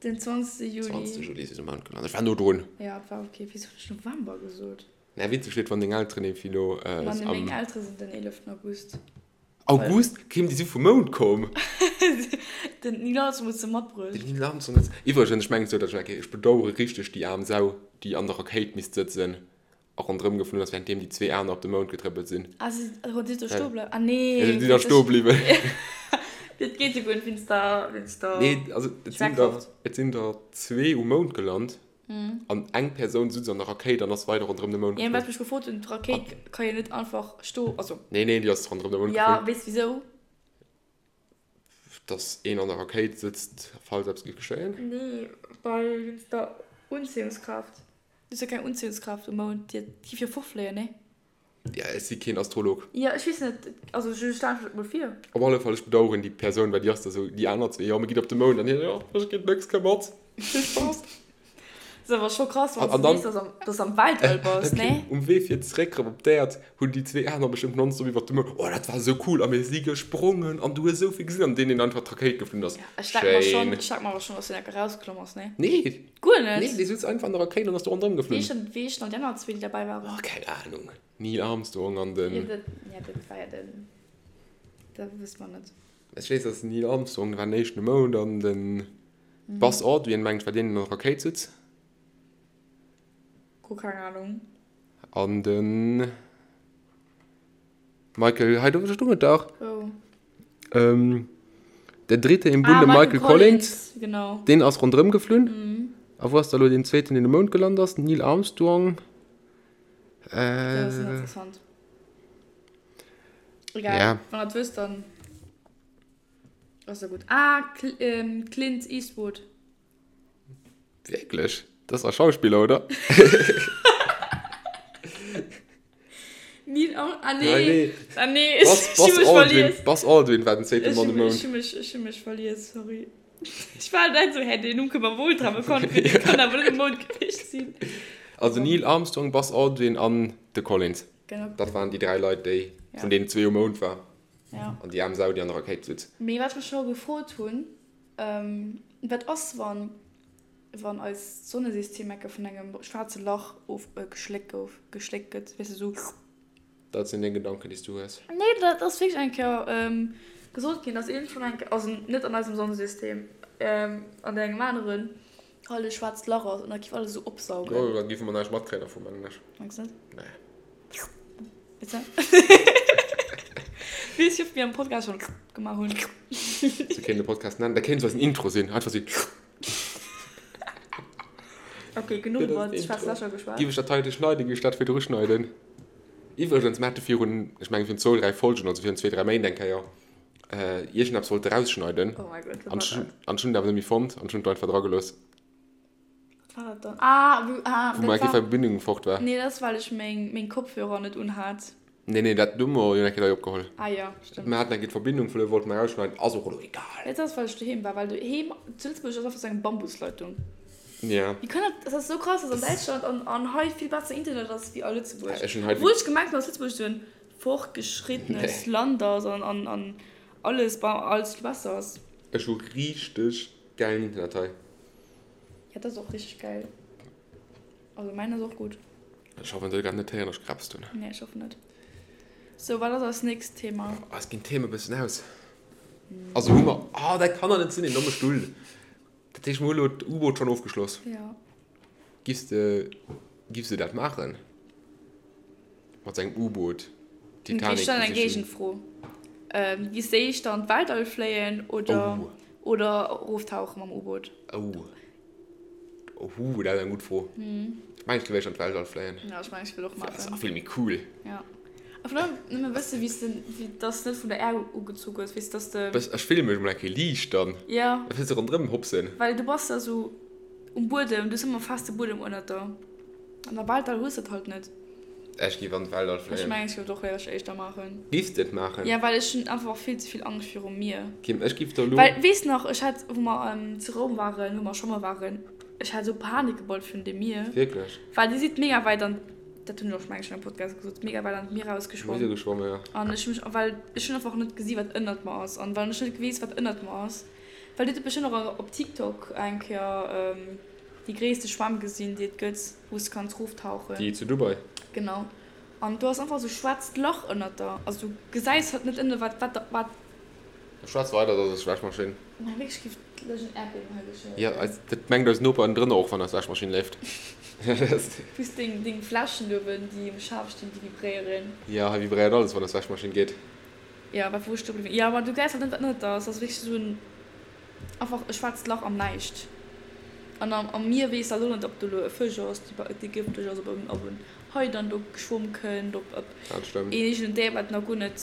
Den 20. Juli. 20. Juli si se um Mound gelant. Ech war no drun. Ja, et war ok. Wisou hunn ech November gesot? Mä witzeg wier et, wann deng Elteren eben elo am. Meng Eltere sinn den 11. August. August? Kim, déi si vum Mound komm. Den Neil Armstrong huet se matbruecht. Den Neil Armstrong huet se. Iwwregens, ech mengen sou, datt ech, okay, ech bedauere richteg déi aarm Sau, déi an der Rakéit misst sëtzen a ronderëm geflunn ass, wärenddeem déi zwee aner op de Mound getrëppelt sinn. Ah, si si do stoe bleiwen? Ah nee. Si sinn da stoe bliwwen. Dat geet jo guer net wéinst der, wéinst der. Nee, also et sinn der, et sinn der zwee um Mound gelant. An eng Persoun sutz an der Rakéit an ass weider ronderëm de Mound geflunn. Jo, wat ech mech gefrot hunn, d'Rakéit ka jo net einfach sto, also. Nee, nee, déi ass ronderëm de Mound geflunn. Jo, weess wisou? Dass een an der Rakéit sëtzt, falls eppes géif geschéien? Nee, well wéinst der Unziehungskraaft. Do ass jo keng Unziehungskraaft um Mound, déi géif jo fortfléien, nee? Ja, ech si keen Astrolog. Jo, ech weess net, also ech stelle mech dat mol vir. Op alle Fall, ech bedaueren déi Persoun, well déi ass da sou, déi aner zwee, jo, mir ginn op de Mound, an hien, jo, ech ginn nëx, komm mat, vill Spaass. Ass awer scho krass, wann s de weess, dass s am Weltall bass, nee? Um Wee fir zeréck erëm op d'Äerd hunn déi zwee aner bestëmmt nonstop iwwer de Mound, oh, dat war esou cool, a mir si gesprongen an du hues esou vill gesinn, an deen, deen einfach d'Rakéit geflunn ass, Ech denk mer schonn, ech denk mer awer schonn, dass deen enke rausklomm ass, nee? Nee! Guer net? Nee, dee sutz einfach an der Rakéit an ass do ronderëm geflunn. Wéi heeschen dann déi aner zwee, déi derbäi waren? Oh, keng Ahnung. Neil Armstrong an den. Jo, dat, ja, dat war ja den, dat wësse mer net. Ech weess, dass den Neil Armstrong, dee war den éischten um Mound, an den Buzz Aldrin, mengen ech, war deen, deen an der Rakéit sutz. Guer keng Ahnung. An den Michael, hei do stoung et dach. Wou? Ähm, Der Dritte im Bunde, ah, Michael, Michael Collins, Collins, genau. Deen ass ronderëm geflunn. Mhm. A wou ass da lo deen zweeten, deen um Mound gelant ass? Neil Armstrong. Äh, dat ass interessant. Egal, ja. Wann der wësst, dann ass ja gut. Ah, Cl ähm, Clint Eastwood. Wierklech? Dat ass a Schauspiller, oder? Neil Arm ah nee. nee. Ah nee, ech, Buzz, Buzz, ech Aldrin, Buzz Aldrin war den zweete Mann um Mound. Ech hu mech, ech hu mech verlies, sorry. Ech war net so, hä, den Numm kënnt mer wuel dra bekannt vir, dee kann awer net um Mound gewiescht sinn. Also Neil Armstrong, Buzz Aldrin an de Collins. Genau. Dat waren déi dräi Leit, déi, ja. vun deenen zwee um Mound war. Ja. An déi aarm Sau, déi an der Rakéit sutz. Mee wat ech mech scho gefrot hunn, Wat ass, wann, wann eist Sonnesystem enke vun engem schwaarze Lach of, geschléckt gouf, geschléckt gëtt, weess de, sou. Dat sinn deng Gedanken, déi s du hues. Nee, dat ass wierklech eng Kéier gesot ginn, dass iergendwann eng Kéier, also net an eisem Sonnesystem, an engem aneren, halt e schwaarzt Lach ass an da giff alles esou opsaugen. Jo, da giffe mer näischt matkréien dervu, mengen ech. Mengs net? Nee. Bitte? Weess ech, ob mir am Podcast schon gemaach hunn. Sou kéint de Podcast nennen. Dat kéint sou eisen Intro sinn. Einfach sou. Okay, genuch iwwer schwaarz Lächer geschwat. Giff ech dat heite schneiden, giff ech dat virdru schneiden. Iwwregens, mir hate virun, ech mengen virun zwou, dräi Folgen, also virun zwee, dräi Méint eng Kéier, iergendeppes wollte rausschneiden. Oh mäi Gott, wat war dat? An ech hunn et awer net méi fonnt an ech hunn et einfach dragelooss. Wat war dat dann? Ah, wou, ah, Wou dat war. Verbindung fort war. Nee, dat ass, well ech meng, meng Kopfhörer net unhat. Nee, nee, dat hu mer jo eng Kéier hei opgeholl. Ah jo, stëmmt. Mer haten eng Kéier d'Verbindung verluer, wollte mer erausschneiden, ass och elo egal. Dat ass, well ech doheem war, well doheem zu Lëtzebuerg ass einfach sou eng Bambusleitung. Ja. Wéi kann dat, dat ass sou krass, dass an Däitschland an an hei vill besser Internet ass wéi a Lëtzebuerg. Ech hunn hei. Obwuel ech gemengt hunn, dass Lëtzebuerg sou en fortgeschrittenes Land ass an an an alles alles vill besser ass. Ech hu richteg gäilen Internet hei. Ja, dat ass och richteg gäil. Also mäin ass och gutt. Ech hoffen se gett net héieren dass ech gerapst hunn. Nee ech hoffen net. Sou wat ass eist nächst Thema? Eis ginn d'Theme bëssen aus. Also hu mer, oh dat kann der net sinn, een domme Stull. Dat heescht mer hu elo d'U-Boot schonn ofgeschloss. Jo. Giffs de, giffs de dat maachen? Mat sengem U-Boot d'Titanic besichen? Ech stellen eng Géigenfro. Giffs de éischter an d'Weltall fléien oder, oder eroftauche mam U-Boot? Oh. Ohh, dat ass eng gutt Fro. Ech mengen, ech géif éischter an d'Weltall fléien. Ja, ech mengen, ech wëll och maachen. Dat ass vill méi cool. Ja. A vun allem nëmme wësse wéi s de, wéi dass de net vun der Äerd ugezu gëss, weess dass de. Bëss, ech fille mech emol eng Kéier liicht dann. Ja. Da wëlls de ronderëm hopsen. Well du bass da sou um Buedem, du hues ëmmer feste Buedem ënnert der. An der Weltall hues de dat halt net. Ech géif an d'Weltall fléien. Ech mengen, ech géif et och éischter éischter maachen. Giffs de et maachen? Ja, well ech hunn einfach vill ze vill Angscht virum Mier. Kim, ech giff der elo. Well, weess nach, ech hat, wou mer zu Roum waren, wou mer schwamme waren, ech hat esou Panik gebaut virun dem Mier. Wierklech? Well dir sidd mega wäit an, dat hunn ech och, meng ech, an engem Podcast gesot, mega wäit an d'Mier erausgeschwomm. Mir si geschwomme, ja. An ech hu mech, well ech hunn einfach net gesi wat ënnert mer ass. An well ech net weess, wat ënnert mer ass, well dir hutt bestëmmt och op TikTok eng Kéier déi gréisste Schwämm gesinn, déi et gëtt. Wou s de kanns roftauchen. Déi zu Dubai? Genau. An do ass einfach esou schwaarzt Lach ënnert der. Also du gesäis halt net ënne wat wat wat. Schwätz weider, dat ass Wäschmaschinn. Mä wierklech géif lech en Äerdbiewen hei geschéien. Jo, eis, dat mengt eis Noper ënnendrënner och, wann eis Wäschmaschinn leeft. Plus deng deng Fläschen uewen, déi um Schaf stinn, déi vibréieren. Jo, hei vibréiert alles, wann eis Wäschmaschinn geet. Jo, wat wou ech do bliwwen? Jo, ma du gesäis halt net wat ënnert der ass. Dat ass wierklech esou en. Einfach e schwaarzt Lach am Näischt. An am Mier weess alt och net, ob do elo e Fësch ass, dee gëfteg ass, ob en Hai dann do geschwomm kënnt, ob een eegenen Déier, wat nach guer net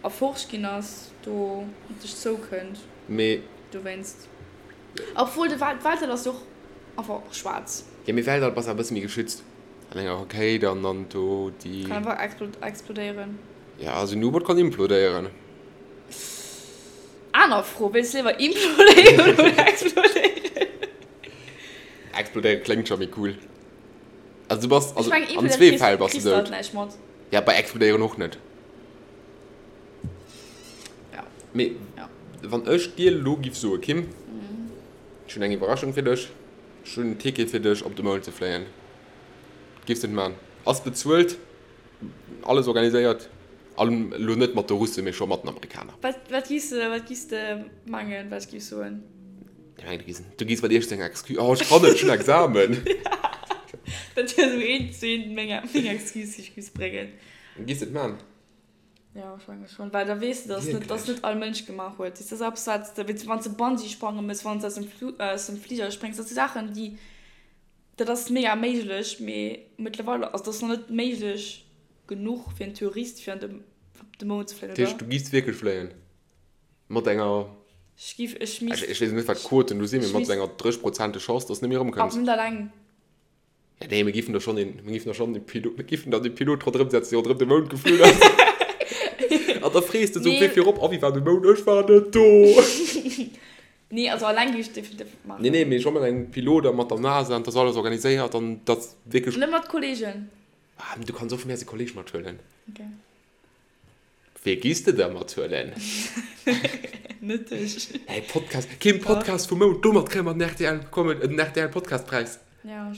erforscht ginn ass, do op dech zoukënnt. Mee. Dowéinst. Obwuel, de Weltall ass jo och einfach schwaarz. Jo, mee Weltall bass awer e bësse méi geschützt. An enger Rakéit an dann do déi. Kann einfach explodéieren. Jo, also en U-Boot kann implodéieren. Aner Fro, Wéilst de léiwer implodéieren oder explodéieren? Explodéieren kléngt scho méi cool. Also du bass, also an zwee Fäll bass du dout. Ja, bei explodéieren och net. Ja. Mee wann ech dir elo giff soe, Kim, ech hunn eng Iwwerraschung fir dech, ech hunn en Ticket fir dech op de Mound ze fléien, giffs de et man? Ass bezuelt. Alles organiséiert, an elo net mat de Russen, mee scho mat den Amerikaner. Wat, wat giss de, wat giss de mengen, wat ech giff soen? Ech mengen, du giss, du giss mat iergend enger Excuse, oh ech kann net, ech hunn Examen. Dat wier esou eent zu eent meng, meng Excuse, déi ech giss bréngen. Giss de et man? Jo, ech menge schonn, well da weess de, dass net, dass net all Mënsch gemaach huet. Dat ass eppes, wat s de, wann s de Bungee sprange mëss, wann s de aus dem Flu, aus dem Fliger spréngs, dat si Saachen, déi. Dat ass mega méiglech, mee mëttlerweil, also dat ass nach net méiglech genuch fir en Tourist fir an de op de Mound ze fléien, oder? Dat heescht, du giffs wierklech fléien? Mat enger, Ech giff, ech misst. ech weess net wat d'Quoten do sinn, mee mat enger 30 Prozente Chance, dass de net méi erëmkënns. Awer net alleng. Ja nee, mir giffen der schonn een, mir giffen der schonn e Pilot, mir giffen dann de Pilot ronderëm setzen, dee ronderëm de Mound geflunn ass. An da frees de sou, wéi virop, a wéi war de Mound? Ech war net do. Nee, also alleng géif ech definitiv net maachen. Nee, nee, mee scho mat engem Pilot a mat der NASA an dass alles organiséiert an dass wierklech. Net mat Kollegen? Ah, du kanns och vun mir aus e Kolleg mathuelen. Ok. Wee giss de da mathuelen? Net dech. Hey, Podcast, keen Podcast vum Mount, domat kréie mer den rtl Comedy, den rtl Podcastpräis. Ja,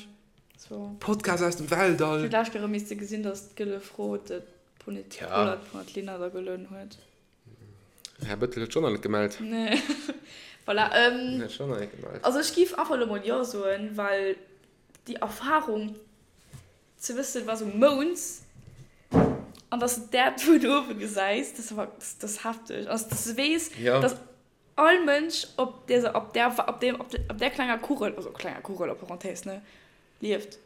so. Podcast aus dem Weltall. Ech hu d'lescht Kéier erëm misse gesinn, dass d'Gëlle Fro de Pollert vun der Lina da gelueden huet. Här Bëttel huet schonn nach net gemellt. Nee. Voilà. Ähm, Huet schonn nach net gemellt. Also ech giff einfach elo mol Jo soen, well déi Erfahrung ze wëssen, was um Mound an dass de d'Äerd vun uewe gesäis, dat ass einfach, dat ass hefteg. Also dass de weess, Ja. dass all Mënsch op där, op där, op deem, op där klenger Kugel, also klenger Kugel a Parenthèse, ne, lieft.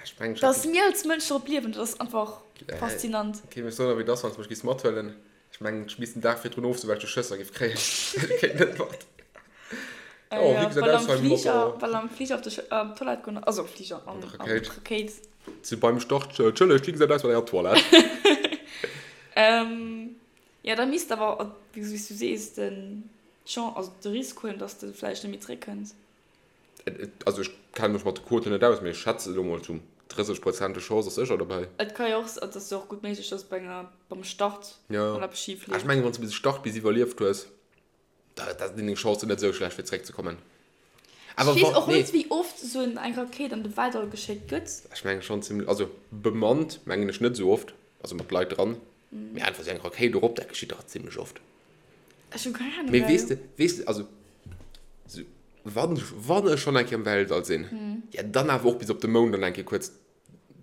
Ech mengen, ech Dass mir als Mënsch drop liewen, dat ass einfach faszinant. Okay, mee soen, wéi et ass, wann s de mech giffs mathuelen. Ech mengen, ech misst den Dag virdrun ofsoen, well ech jo Schësser giff kréien. Ech kéint net mat. Oh, wéi gesäit aus hei mat der. Well am Fliger op de Toilette goen, also am Fliger, an der Rakéit. Si beim Start, Entschëllegt, wéi gesäit aus mat enger Toilette? Ähm, jo, da misst awer, wéi s du sees, den Chance, also de Risk huelen, dass de vläicht net méi zréckkënns. Also ech kenne mech mat de Quoten net aus, mee ech schätze elo mol zu 30 Prozent de Chance ass sécher dobäi. Et ka jo och, et ass jo och gutt méiglech, dass bei enger, beim Start mol eppes schif leeft. Ech mengen, wann s de bis Start bis iwwerlieft hues, da da sinn deng Chancen net esou schlecht fir zeréckzekommen. Awer Ech weess och net, wéi oft esou eng Rakéit an de Weltall geschéckt gëtt. Ech mengen schonn zimlech, also bemannt mengen ech net esou oft, also mat Leit dran, mee einfach esou eng Rakéit erop, dat geschitt dach zimlech oft. Ech hu keng Ahnung. Mee weess de, weess de, also sou wann, wann ech schonn eng Kéier am Weltall sinn, ja dann awer och bis op de Mound an eng Kéier kuerz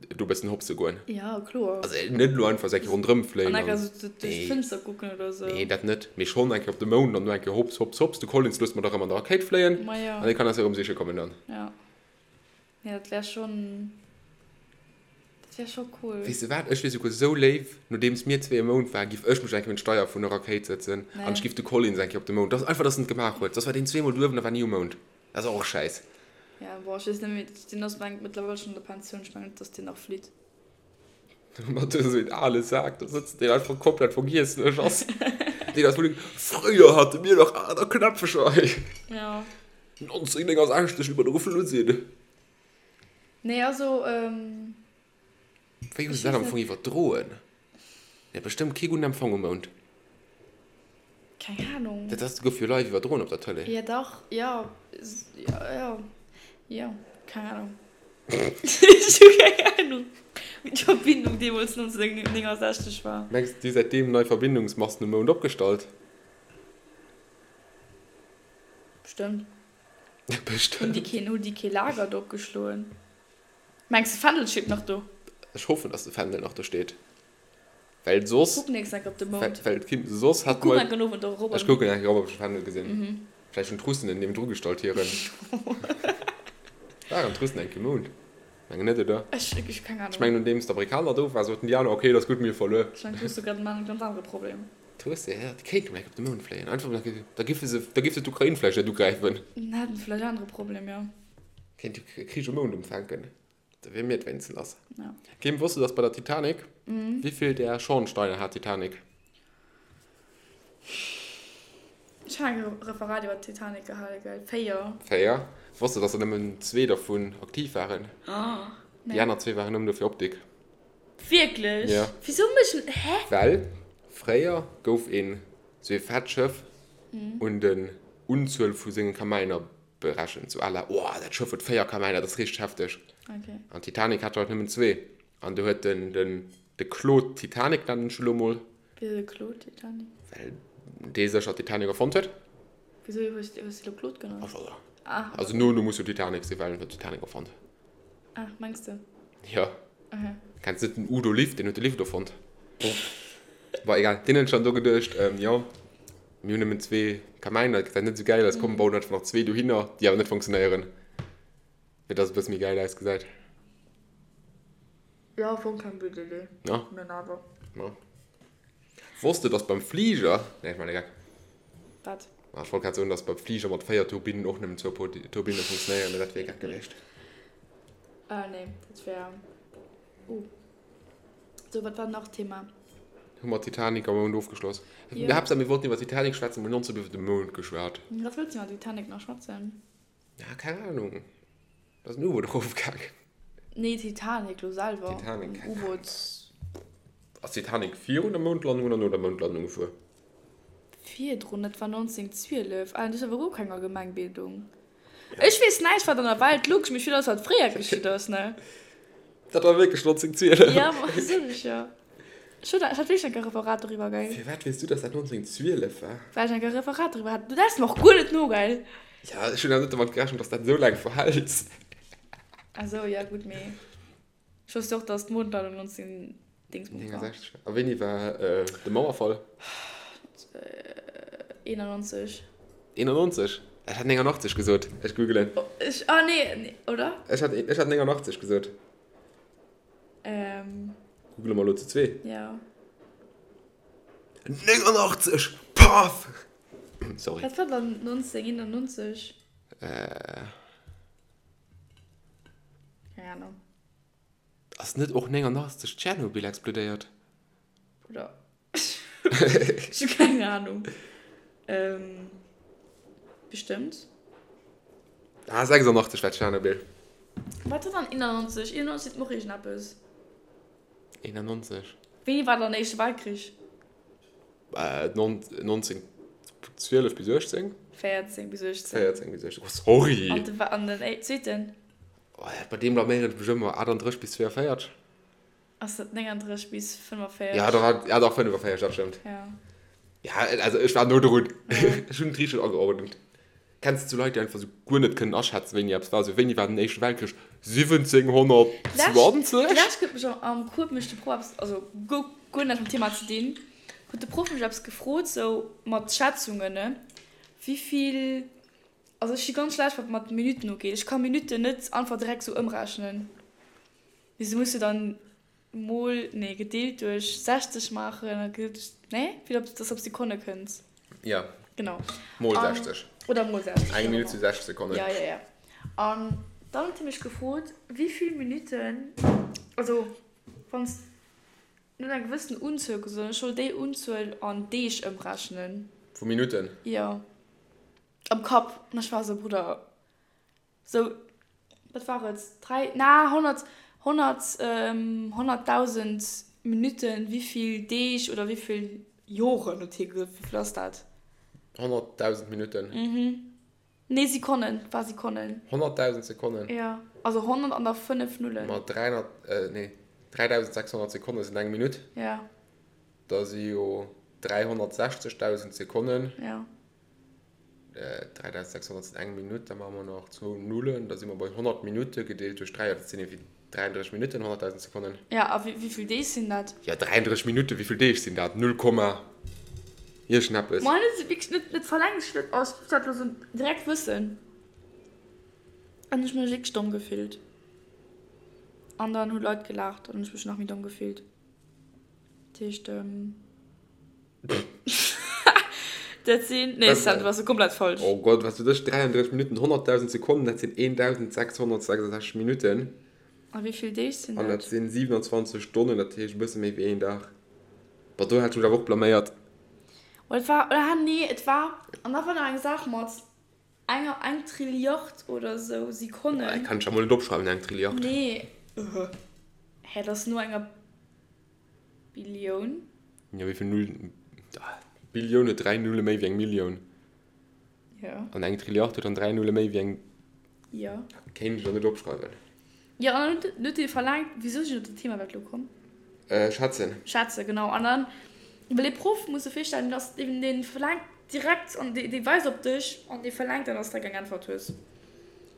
do e bëssen hopse goen. Ja, kloer. Also net elo einfach esou eng Kéier ronderëm fléien An eng Kéier sou duerch d'Fënster kucken oder sou. Nee, dat net, mee schonn eng Kéier op de Mound an do eng Kéier hops, hops, hops. De Collins loosst mer dach erëm an der Rakéit fléien. Ma jo. An dee kann eis erëm siche kommen dann. Ja. Nee, dat wär schonn, dat wär scho cool. Weess de wat, ech wier souguer sou léif, nodeems mir zwee um Mound waren, giff ech mech eng Kéier un d'Steier vun der Rakéit sëtzen an ech giff de Collins eng Kéier op de Mound. Dass einfach, dass en et gemaach huet. Soss war deen zweemol duerwen a war ni um Mound. Dat ass och schäiss. Ja, bon, ech weess net méi, deen ass mengt mëttlerweil schonn an der Pensioun, ech mengen net, dass deen nach flitt. Mat esou een ale Sak do sëtzen, deen einfach komplett vergiesslech ass. Deen ass wuel, Fréier hate mir nach aner Knäpfecher hei. Ja. 1969, wéi mer do geflu sinn. Nee, also, Wéi hu se dat am Fong iwwerdroen? Mir hat bestëmmt kee gudden Empfang um Mound. Keng Ahnung. Dat ass, gouf jo live iwwerdroen op der Tëlee. Ja dach, jo, jo, jo, keng Ahnung. Ech hu keng Ahnung, wéi d'Verbindung deemools 1969 war. Mengs de, déi hu säitdeem nei Verbindungsmasten um Mound opgestallt? Bestëmmt. Bestëmmt. Hunn déi keen, hunn déi kee Lager do opgeschloen? Mengs de Fändel steet nach do? Ech hoffen dass de Fändel nach do steet, well soss. Kuck nächst enk op de Mound. Well et soss hat Kuck enk en Owend och erop. Ech kucken enk erop op ech de Fändel gesinn. Vläicht hunn d'Russen en niewendru gestallt hiren. Waren d'Russen enk um Mound? Mengen net oder? Ech hu keng Ahnung. Ech mengen nodeems d'Amerikaner do waren soten déi aner ok et ass gutt mir hu verluer. Ech mengen d'Russe grad maan e ganz anere Problem. D'Russe ja déi kéinten enk op de Mound fléien einfach da giffe se da giff se d'Ukrain vläicht net ugräifen. Dann hätten se vläicht anere Problem jo. Kéint de Krich um Mound umfänken, da wier mir et wéinstens lass. Ja. Kim, wosst du, dass bei der Titanic, wéivill där Schornsteiner hat d'Titanic? Ech hat eng Referat iwwer d'Titanic gehale, gell? 4. 4. Wosst du, dass der nëmmen zwee dervun aktiv waren? Nee. Déi aner zwee waren nëmmen do fir Optik. Wierklech? Ja. Wisou méchen, hä? Well fréier gouf een sou ee fett Schëff un den Unzuel vu senge Kamäiner berechent, sou à la, oh, dat Schëff huet 4 Kamäiner, dat ass richteg hefteg. Okay. An d'Titanic hat der halt nëmmen zwee. An do huet den, den, de Claude Titanic, nennen ech elo mol. Wisou de Claude Titanic? Well dee sécher d'Titanic erfonnt huet. Wisou hues du elo Claude genannt? Ach, voilà. Ah. Also no, no muss jo Titanic sinn, well en huet d'Titanic erfonnt. Ah, mengs de? Jo. Okay. Kenns net den Udo Lift, deen huet de Lift erfonnt. Bon, egal. Deen huet sech dann do geduecht, jo, Mir hunn nëmmen zwee Kamäiner, dat gesäit net esou gäil aus, komm bauen einfach nach zwee dohinner, déi awer net funktionéieren, fir dass et e bësse méi gäil ausgesäit. Jo, am Fong keng blöd Idee, Ja. mä awer. Ma wosst de, dass beim Fliger, nee, ech maachen e Geck. Wat? Ma ech wollt grad soen, dass beim Fliger mat 4 Turbinnen och nëmmen zwou Turbinne funktionéieren, mä dat wier e Geck gewiescht. Ah nee, dat wär, uh. Sou, wat war nach Thema? Hu mer Titanic am Mound ofgeschloss? Jo. Haaptsaach mir wollten iwwer Titanic schwätzen, mir hunn nonstop iwwer de Mound geschwat. Wat wëlls du iwwer Titanic nach schwätzen? Ja, keng Ahnung. Da ass en U-Boot erofgaangen. Nee, Titanic lo selwer. Titanic, keng Ahnung. U-Boot. Ass Titanic virun der Moundlandung oder no der Moundlandung gefuer? Virdrun, dat war 1912. Ah, du hues awer guer keng Allgemengbildung. Ech weess näischt wat an der Welt luch, mee ech weess alles wat fréier geschitt ass, ne? Dat war wierklech 1912. Ja, ma sot ech jo. Ech hat ech hat wierklech enk e Referat doriwwer, gell? Firwat weess du, dass dat 1912 war? Well ech enk e Referat doriwwer hat. Du läss mer och guer net no, gell? Ja, ech hunn awer net domat gerechent, dass dat esou laang verhält. Ah sou, ja gutt, mee ech wousst jo och, dass d'Mondlandung 19 Dingsbums war. 69. A wéini war de Mauerfall? 91. 91? Ech hat 89 gesot. Ech googelen. Ech, ah nee, nee, oder? Ech hat, ech hat 89 gesot. Ähm. Googele mer elo zu zwee. Ja. 89! Paff! Sorry. Wat war dann 1991? Äh. Keng Ahnung. Ass net och 89 Tschernobyl explodéiert? Bruder. Ech hu keng Ahnung. Bestëmmt. Ah, 86 war Tschernobyl. Wat war dann 91? 91 seet mer och iergendeppes. 91? Wéini war dann den Éischte Weltkrich? 1912 bis 18? 14 bis 18. 14 bis 18, oh sorry! An de, an den zweeten? Oh, bei deem blaméieren ech mech ëmmer. 38 bis 42? Ass dat 39 bis 45? Ja, da war, ja, dach 45, dat stëmmt. Ja. Ja, also ech war no drun. Ech hunn et richteg ageordent. Kenns de sou Leit, déi einfach sou guer net kënnen aschätzen, wéini eppes war? Sou, wéini war den Éischte Weltkrich? 1720? D'lescht huet mech am Cours mech de Proff eppes, also guer, guer näischt mam Thema ze dinn, huet de Proff mech eppes gefrot, sou mat Schätzungen, ne, wéivill, also ech si ganz schlecht wat mat Minutten ugeet, ech ka Minutten net einfach direkt sou ëmrechnen. Mee se muss jo dann mol, nee, gedeelt duerch 60 maachen a gedeelt duerch, nee, fir dass de op Sekonne kënns. Ja. Genau. Mol 60. Oder mol 60. Eng Minutt si 60 Sekonnen. Ja, ja, ja. An dann huet hie mech gefrot, wéi vill Minutten, also wann s, en huet eng gewëssen Unzuel gesot an ech soll déi Unzuel an Deeg ëmrechnen. Vu Minutten? Jo. Am Kapp. An ech war esou, Brudder. Sou, wat war et, 3, na, 100, 100, 100.000 Minutten, wéivill Deeg oder wéivill Joren huet hie gesot, wéivill ass dat? 100.000 Minutten. Mhm. Nee, Sekonnen, war Sekonnen. 100.000 Sekonnen? Jo, also 100 an da 5 Nullen. Ma 300, nee, 3.600 Sekonne sinn eng Minutt. Jo. Da si jo 360.000 Sekonnen. Jo. 3600 sinn eng Minutt, da maache mer nach zwou Nullen, da si mer bei 100 Minutte gedeelt duerch 3, dat sinn ewéi 33 Minutten, 100.000 Sekonnen. Ja, a wéi vill Deeg sinn dat? Ja, 33 Minutte, wéi vill Deeg sinn dat? Null Komma iergendeppes. Ma net wierklech, net, net verlaangt ech dat, ech muss dat elo sou direkt wëssen. An ech mech wierklech domm gefillt. An dann hu Leit gelaacht an hunn ech mech nach méi domm gefillt. Dat heescht. Dat sinn, nee Sam, du bass komplett falsch. Oh Gott, wat sot ech? 33 Minutten, 100.000 Sekonnen, dat sinn 1.666 Minutten. A wéi vill Deeg sinn dat? An dat sinn 27 Stonnen, dat heescht e bësse méi wéi een Dag. Boah, do hat ech mech awer och blaméiert. Oh, et war, ah nee, et war, an da war nach eng Saach mat enger, eng Trilliard oder esou Sekonnen. Boah, dat kann ech ja mol net opschreiwen, eng Trilliard. Nee, hä, dat ass no enger. Billioun? Jo, wéi vill Nullen? Billioun huet 3 Nulle méi wéi eng Millioun. Jo. An eng Trilliard huet dann 3 Nulle méi wéi eng. Jo. Kéint ech elo net opschreiwen. Jo, an dann huet dee verlaangt, wéisou sinn ech op dat Thema iwwerhaapt elo komm? Schätzen. Schätzen, genau. An dann, well ee Proff, muss de virstellen, dass deen, dee verlaangt direkt an dee, dee weist op dech an dee verlaangt dann, dass de eng Äntwert hues.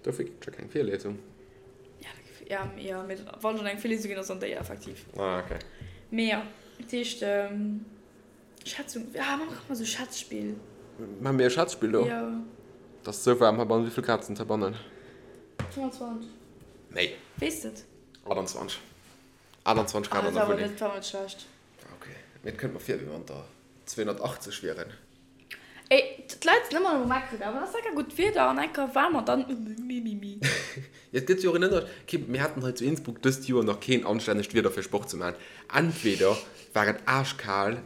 Dofir ginn et jo keng Virliesung. Ja, ja, mee wann schon eng Virliesung ginn ass, dann déi effektiv. Ah, okay. Mee ja, dat heescht, Schätzung, ah, maache mer esou Schätzspill. Maache mir e Schätzspill do? Jo. Et ass esou waarm heibannen. Wéi vill Grad sinn et heibannen? 25. Méi. Weess de et? 28. 28 Grad an der Wunneng. Ah, dat war awer net, dat war net schlecht. Okay. Mee et kënnt mer vir, wéi wann der 280 wieren. Ey, d'Leit sinn ëmmer um Meckeren, awer ass enker gutt Wieder an enker waarm an dann mimimi. Jo, et gëtt jo och en Ënner, kee, mir haten hei zu Innsbruck dëst Joer nach keen anstännegt Wieder fir Sport ze maachen. Entweder war et aaschkal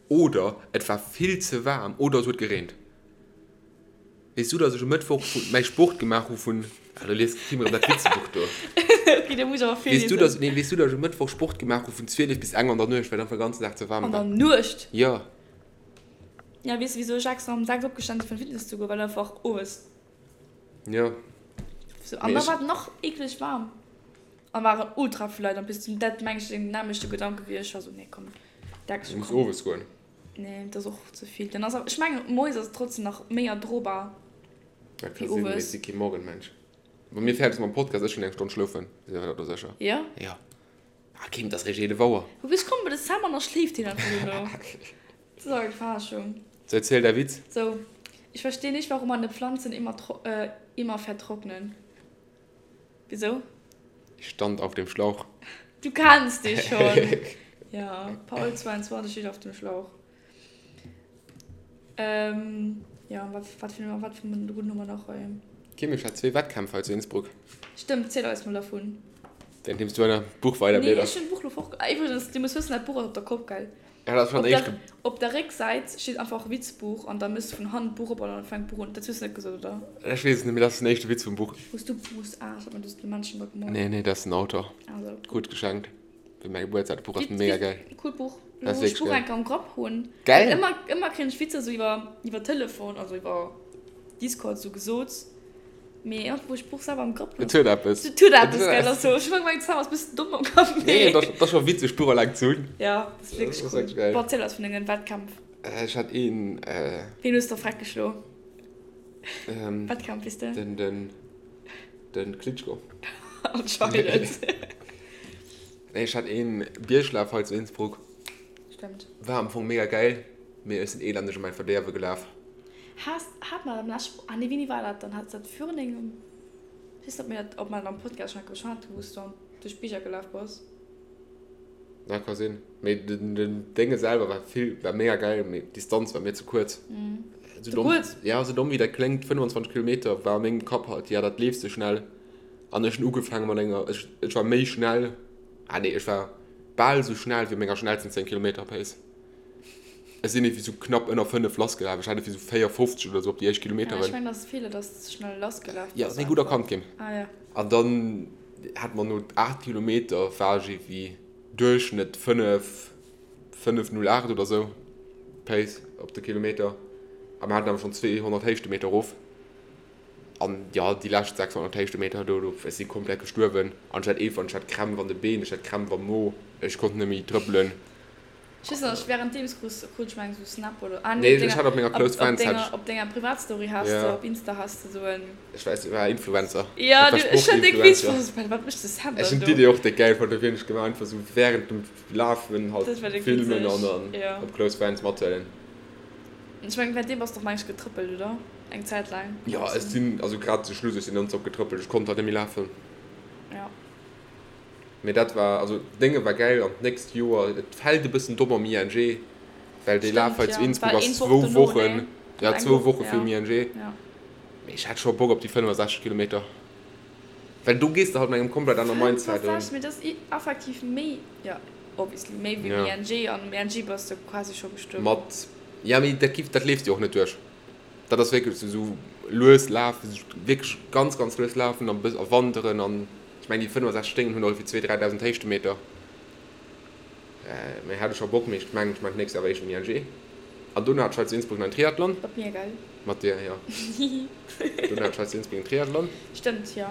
oder et war vill ze waarm oder et huet gereent. Weess du, dass ech um Mëttwoch vu mäi Sport gemaach hu vun, ah, lo liest d'Kim erëm dat Witzebuch do. Ok, da muss ech awer Weess du, virliesen. dass, nee, weess du, dass ech um Mëttwoch Sport gemaach hu vun 12 bis eng an der Nuecht, well et einfach de ganzen Dag ze waarm An war? der Nuecht? Jo. Ja, weess de wisou ech extra um 6 opgestan sinn fir an Fitness ze goen, well einfach owes. Jo. Sou, an da war et nach eekleg waarm an waren ultra vill Leit an bis zum dat meng ech den nämmlechte Gedanke wéi ech war sou nee komm Dex Du muss owes goen. Nee, dat ass och ze vill. Dann ass awer ech mengen moies ass et trotzdem nach méi erdrobar Dat ka wéi sinn, mee ech owes. si kee Morgenmensch. Wa mir fäerdeg si mam Podcast, ech hunn eng Stonn schlofen, si mer do sécher. Jo? Jo. Ah Kim, dat ass réischt 11 Auer. Wou ech kommen, de Sam an da schléift hien einfach duerno. Das ist eng Verarschung. So, erziel däi Witz. So, ich verstehe nicht, warum meine Pflanzen immer, äh, immer vertrocknen. Wieso? Ich stand auf dem Schlauch. Du kennst dich schon. Ja, Paul 22 steht auf dem Schlauch. Ähm, ja, wat, wat fir, wat fir en gudden hu mer nach hei? Kim, ech hat zwee Wettkämpf hei zu Innsbruck. Stëmmt, ziel eis mol dervun. Währenddeems du an deinem Buch weider Nee, ech hunn d'Buch lo fort. Ah, iwwregens, du muss wëssen, dat Buch ass op der Kopp, gell? Ja, dat ass schonn den éischte. Op der Récksäit steet einfach Witzbuch an da méchs de vun hannen d'Buch op an dann fänkt d'Buch un. Dat hues de net gesot, oder? Ech weess et net, mee dat ass den éischte Witz vum Buch. Hues du Buch? Ah, ech hat mir de Menschen da gemoolt. Nee, nee, dat ass den Autor. Also. Krut geschenkt fir mäi Gebuertsdag. Dat Buch ass mega geil. Coolt Buch. Lo wou ech d'Buch eng Kéier am Grapp hunn. Geil! Ëmmer, ëmmer kréien ech Witzer sou iwwer, iwwer Telefon, also iwwer Discord sou gesot. Mee iergendwou wou ech d'Buch selwer am Grapp hunn. Et huet eppes. Et huet eppes, gell? Also ech hu gemengt, d'Sam ass e bëssen domm am Kapp, mee. Nee, dat ass scho witzeg, d'Buch eleng ze hunn. Ja, dat ass wierklech cool. Dat ass wierklech geil. Bon, erziel eis vun dengen Wettkämpf. Ech hat een. Ween hues de freck geschlo? Wettkampf, weess de? Den, den, den Klitschko. Anscheinend. Nee, ech hat een Bierglaf hei zu Innsbruck. Stemmt. War am Fong mega geil, mee ech sinn elendeg an mäin Verdeerwe gelaf. Has, hat mer am leschten, ah nee, wéini war dat dann? Hat dat virun engem, ech weess net, ob mir dat, ob mer dat am Podcast schon geschwat hunn, wou s du an duerch d'Bierger gelaf bass? Ja, ka sinn. Mee den, den Dénge selwer war vill, war mega geil, mee d'Distanz war mir ze kuerz. Ze kuerz? Ja, sou domm wéi dat kléngt, 25 Kilometer war a mengem Kapp halt, ja, dat leefs de schnell. An ech hunn ugefaange mat enger, ech, ech war méi schnell, ah nee, ech war bal sou schnell wéi op menger schnellsten 10 Kilometer Pace. Ech sinn iergendwéi sou knapp ënner 5 lassgelaf, ech hat iergendwéi sou 4,50 oder sou op déi éischt Ja, ech Kilometeren. mengen, dat ass Feeler, dass de ze schnell lassgelaf Ja, bass ass net gutt einfach. erkannt ginn. Ah ja. An dann hat mer no 8 Kilometer war ech iergendwéi Duerchschnëtt 5, 5,08 oder sou Pace op de Kilometer. A mer haten awer schonn 200 Héichtemeter erof. An jo, déi lescht 600 Héichtemeter do, do, ech si komplett gestuerwen. An ech hat eefan, ech hat Krämpf an de Been, ech hat Krämpf am Mo, ech konnt net méi trëppelen. Ech weess nach, ech währenddeems krus, krut ech meng sou Snap oder, ah nee, op denger, op op denger, op denger Privatstory has de, op Insta has de sou en. Ech weess, ech war Influencer. Jo, du, ech hat déck Witz fonnt, ech wat mécht de Sam dann do? Ech hunn d'Idee och déck gäil fonnt, dofir hunn ech gemaach, einfach sou während dem Lafen halt filmen an dann op Close Friends mathuelen. Ech mengen, währenddeem bass de och meng ech getrëppelt, oder? Eng Zäit laang. Jo, ech sinn, also grad zu Schluss, ech sinn nonstop getrëppelt, ech konnt halt net méi lafen. Jo. Mee dat war, also d'Dénge war gäil an d'nächst Joer, et fält e bëssen domm am ING, well dee Laf hei zu Innsbruck ass zwou Wochen, ja zwou Woche virum ING. Mee ech hätt scho Bock op déi 65 Kilometer, well do gees de halt mat engem komplett anere Mindset un. 65, mee dat ass effektiv méi, jo obviously méi wéi um ING, an um ING bass de quasi scho gestuerwen. Mat, ja mee dat giff, dat leefs de jo och net duerch. Dat ass wierklech esou lues lafen, wierklech ganz, ganz lues lafen a wanderen an ech mengen déi 65 Sténgen hunn och ewéi 2.000, 3.000 Héichtemeter. Mee hat ech scho Bock, mee ech mengen ech maachen d'nächst Joer awer éischt den ING. An dono hat ech hei zu Innsbruck nach en Triathlon. Mat mir, gell? Mat dir, jo. Dono hat ech hei zu Innsbruck en Triathlon. Stëmmt, jo.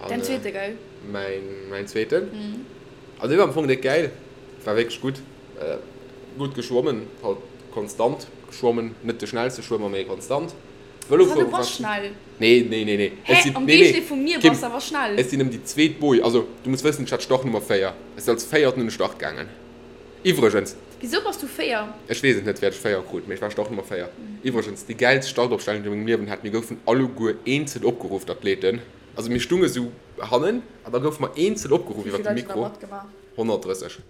Däin zweete, gell? Mäin, mäin zweeten. Also dee war am Fong déck gäil, war wierklech gutt. Gutt geschwommen, halt konstant geschwommen, net de schnellste Schwëmmer, mee konstant. Vëlo fuere war schnell. Nee, nee, nee, nee. Hä, am Géigendeel vu mir bass de awer schnell. Ech sinn ëm déi zweet Boje, also du muss wëssen, ech hat Startnummer 4. Ech sinn als Véierten un de Start gaangen. Iwwregens. Wisou bass du 4? Ech weess et net, wéi ech 4 krut, mee ech war Startnummer 4. Iwwregens, déi gäilst Startopstellung, déi ech a mengem Liewen hat. Mir goufen alleguer eenzel opgeruff, d'Athleten. Also mir stunge sou hannen an da goufe mer eenzel opgeruff iwwer de Mikro. 130.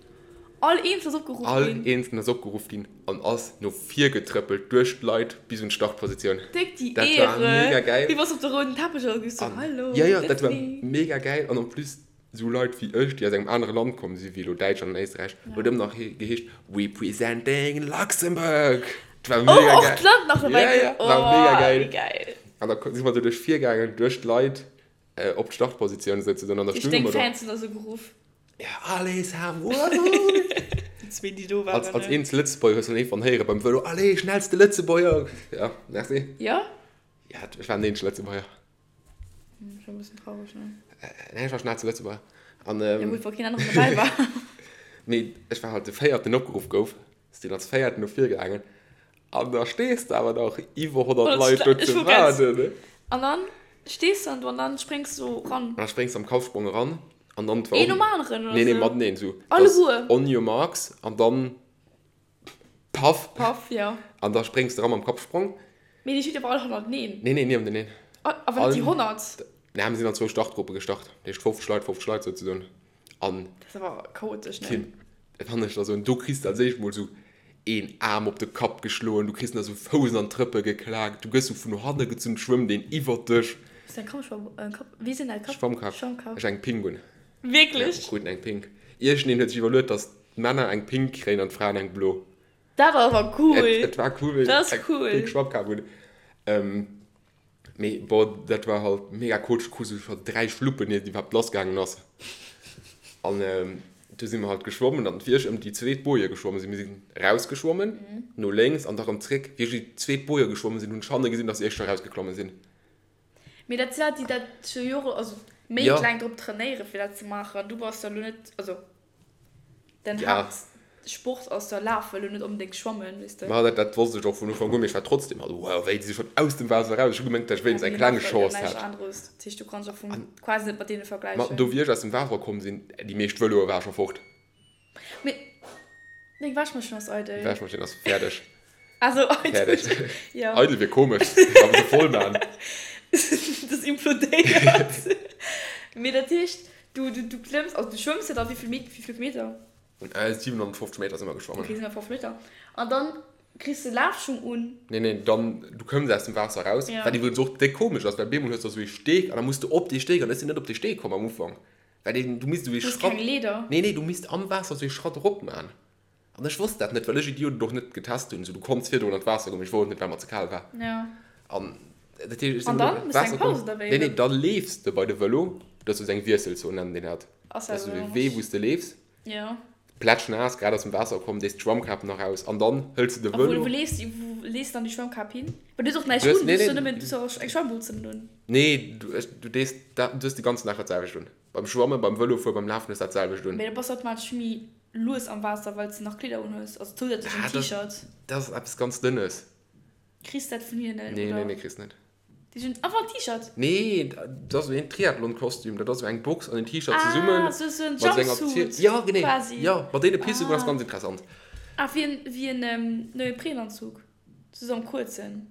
All eenzel ass opgeruff ginn. All eenzeln ass opgeruff ginn an ass no vir getrëppelt duerch d'Leit bis un d'Startpositioun. Déck déi Éiere! Dat war mega geil. Wéi bass op de rouden Teppech oder gehst du Hallo, Ja, ja, dat war mega geil an en plus sou Leit wéi ech, déi aus engem anere Land komm si wéi elo Däitschland an Éisträich, huet ëmmer nach geheescht Representing Luxembourg. Dat war mega geil. Oh, och d'Land nach dobäi. Ja, ja, war mega geil. Wéi geil. An da si mer do duerch vir gaangen, duerch d'Leit op d'Startpositioun souzesoen an da stunge mer do. Deng Fans hunn da sou geruff. Ja, allez Sam, wouhou! Déi zwee, déi do waren. Als, als eenzel Lëtzebuerger hues du dann iergendwann héiere beim Vëlo, Allez, schnellste Lëtzebuerger! Ja, merci. Ja? Ja, ech war den eenzege Lëtzebuerger. Hm, schon e bëssen traureg, ne? Nee, ech war schnellste Lëtzebuerger. An, ähm, ja, gutt, wa keen aneren dobäi war. Mee ech war halt de Véierten, deen opgeruff gouf. Sinn als Véierten no vir gaangen. An da stees de awer nach iwwer 100 Leit do ze waarden, ne? An dann stees de dann do an dann spréngs du ran. An da spréngs de am Kampfsprong eran. An dann Een nom aneren, oder? Nee, nee, mateneen esou. Alleguer? On your marks an dann paff. Paff, jo. An da spréngs de eran mam Kappsprong. Mee déi steet awer all hannerteneen. Nee, nee, niewenteneen. Awer net déi 100? Nee, mir sinn an zwou Startgruppe gestart. Dat heescht 50 Leit, 50 Leit souzesoen. An. Dat ass awer chaotesch, ne? Kim, wann ech der soen, do kriss de als éischt mol sou een Aarm op de Kapp geschloen, du kriss nach sou Fouss an d'Trëppe geklaakt, du gëss sou vun hanne gezunn, schwëmmt een iwwert dech. Hues de eng Kappschwamm, Kapp, wéi sinn däi Kapp? Schwammkap. Schwammkap. Ech eng Pink un. Wierklech? Ja, kruten eng Pink. Iergendeen huet sech iwwerluet, dass. d'Männer eng pink kréien an d'Fraen eng blo. Dat ass awer cool! Et, et war cool, wéi ech eng pink Schwammkap hunn. Mee bon, dat war halt mega kootsch, krus du scho 3 Schluppen iert et iwwerhaapt lass gaangen ass. An du si mer halt geschwommen an wéi ech ëm déi zweet Boje geschwommen sinn, mir sinn rausgeschwommen no lénks an da rëm zréck, wéi ech déi zweet Boje geschwommen sinn, hunn ech hanne gesinn, dass déi éischt scho rausgeklomme sinn. Mee dat si Leit, déi dat scho Jore, also Méint laang drop trainéieren, fir dat ze maachen. An du bass da lo net, also Den ja. Haaptsport ass da Lafen, lo net onbedéngt Schwammen, weess de. Ma dat, dat wosst ech och vun Ufank un, mee ech war trotzdem halt, wow, wéi, déi si schonn aus dem Waasser eraus. Ech hu gemengt, dat ech wéinstens eng kleng Chance hätt. Aneres. Dat heescht, du kanns och vum quasi net mat deene vergläichen. Ma do, wéi ech aus dem Waasser komm sinn, déi meescht Vëloe ware scho fort. Mee deng Wäschmaschinn ass eidel. D'Wäschmaschinn ass fäerdeg. Also eidel. Fäerdeg. Ja. Eidel wier komesch, awer se voll man. Das implodéiert. Mee dat heescht, du, du, du klëmms, also du schwëmms jo da wéi vill Met, wéi vill Meter? 750 Meter si mer geschwommen. Okay, 750 Meter. An dann kriss de Lafschung un. Nee, nee, dann, du kënns aus dem Waasser raus, Ja. wat iwwregens och déck komesch ass, well bemol hues de esou ee Steeg an da muss de op dee Steeg an ech sinn net op dee Steeg komm am Ufank, well deen, du misst esou ee Du hues Schratt. keng Leeder? Nee, nee, du misst am Waasser esou ee Schratt erop man. An ech wosst dat net, well ech Idiot et och net getest hunn. Sou, du konns virdrun an d'Waasser goen, mee ech wollt net, well mer ze kal war. Ja. An dat heescht, ech sinn An dann dann? an Méchs du d'Waasser eng komm. Paus oder wéi? Nee, nee, da leefs de bei de Vëlo. Dat ass sou eng Wiesselzon, nennen déi dat. Ass Dat ass dat sou e esou? Wee, wou s de leefs. Ja. Plätschnaass, grad aus dem Waasser komm, dees d'Schwammkap nach aus an dann hëls de de A wou, Vëlo. wou leefs du, wou lees dann déi Schwammkap hin? Well du hues och näischt Du hues, un, nee, du hues jo nee. nëmmen, du hues jo och eng Schwammbutzen un. Nee, du, ech, du dees dat, du hues de ganzen Dag dat selwecht un. Beim Schwammen, beim Vëlofueren, beim Lafen hues dat selwecht un. Mee da bass du automatesch méi lues am Waasser, well s de nach Kleeder un hues, also zousätzlech en T-Shirt. Dat ass eppes ganz Dënnes. Kriss dat vun hinnen, oder? Nee, nee, nee, kriss net. Déi hunn einfach en T-Shirt? Nee, dat ass esou een Triathlon-Kostüm. Dat ass esou eng Box an en T-Shirt zesummen. Ah, sou en mat esou enger Jumpsuit Ja, genee. quasi. Ja, mat deene Pisse ah. ass ganz interessant. Ah, wéi en, wéi en Neoprenanzug, sou am kuerzen.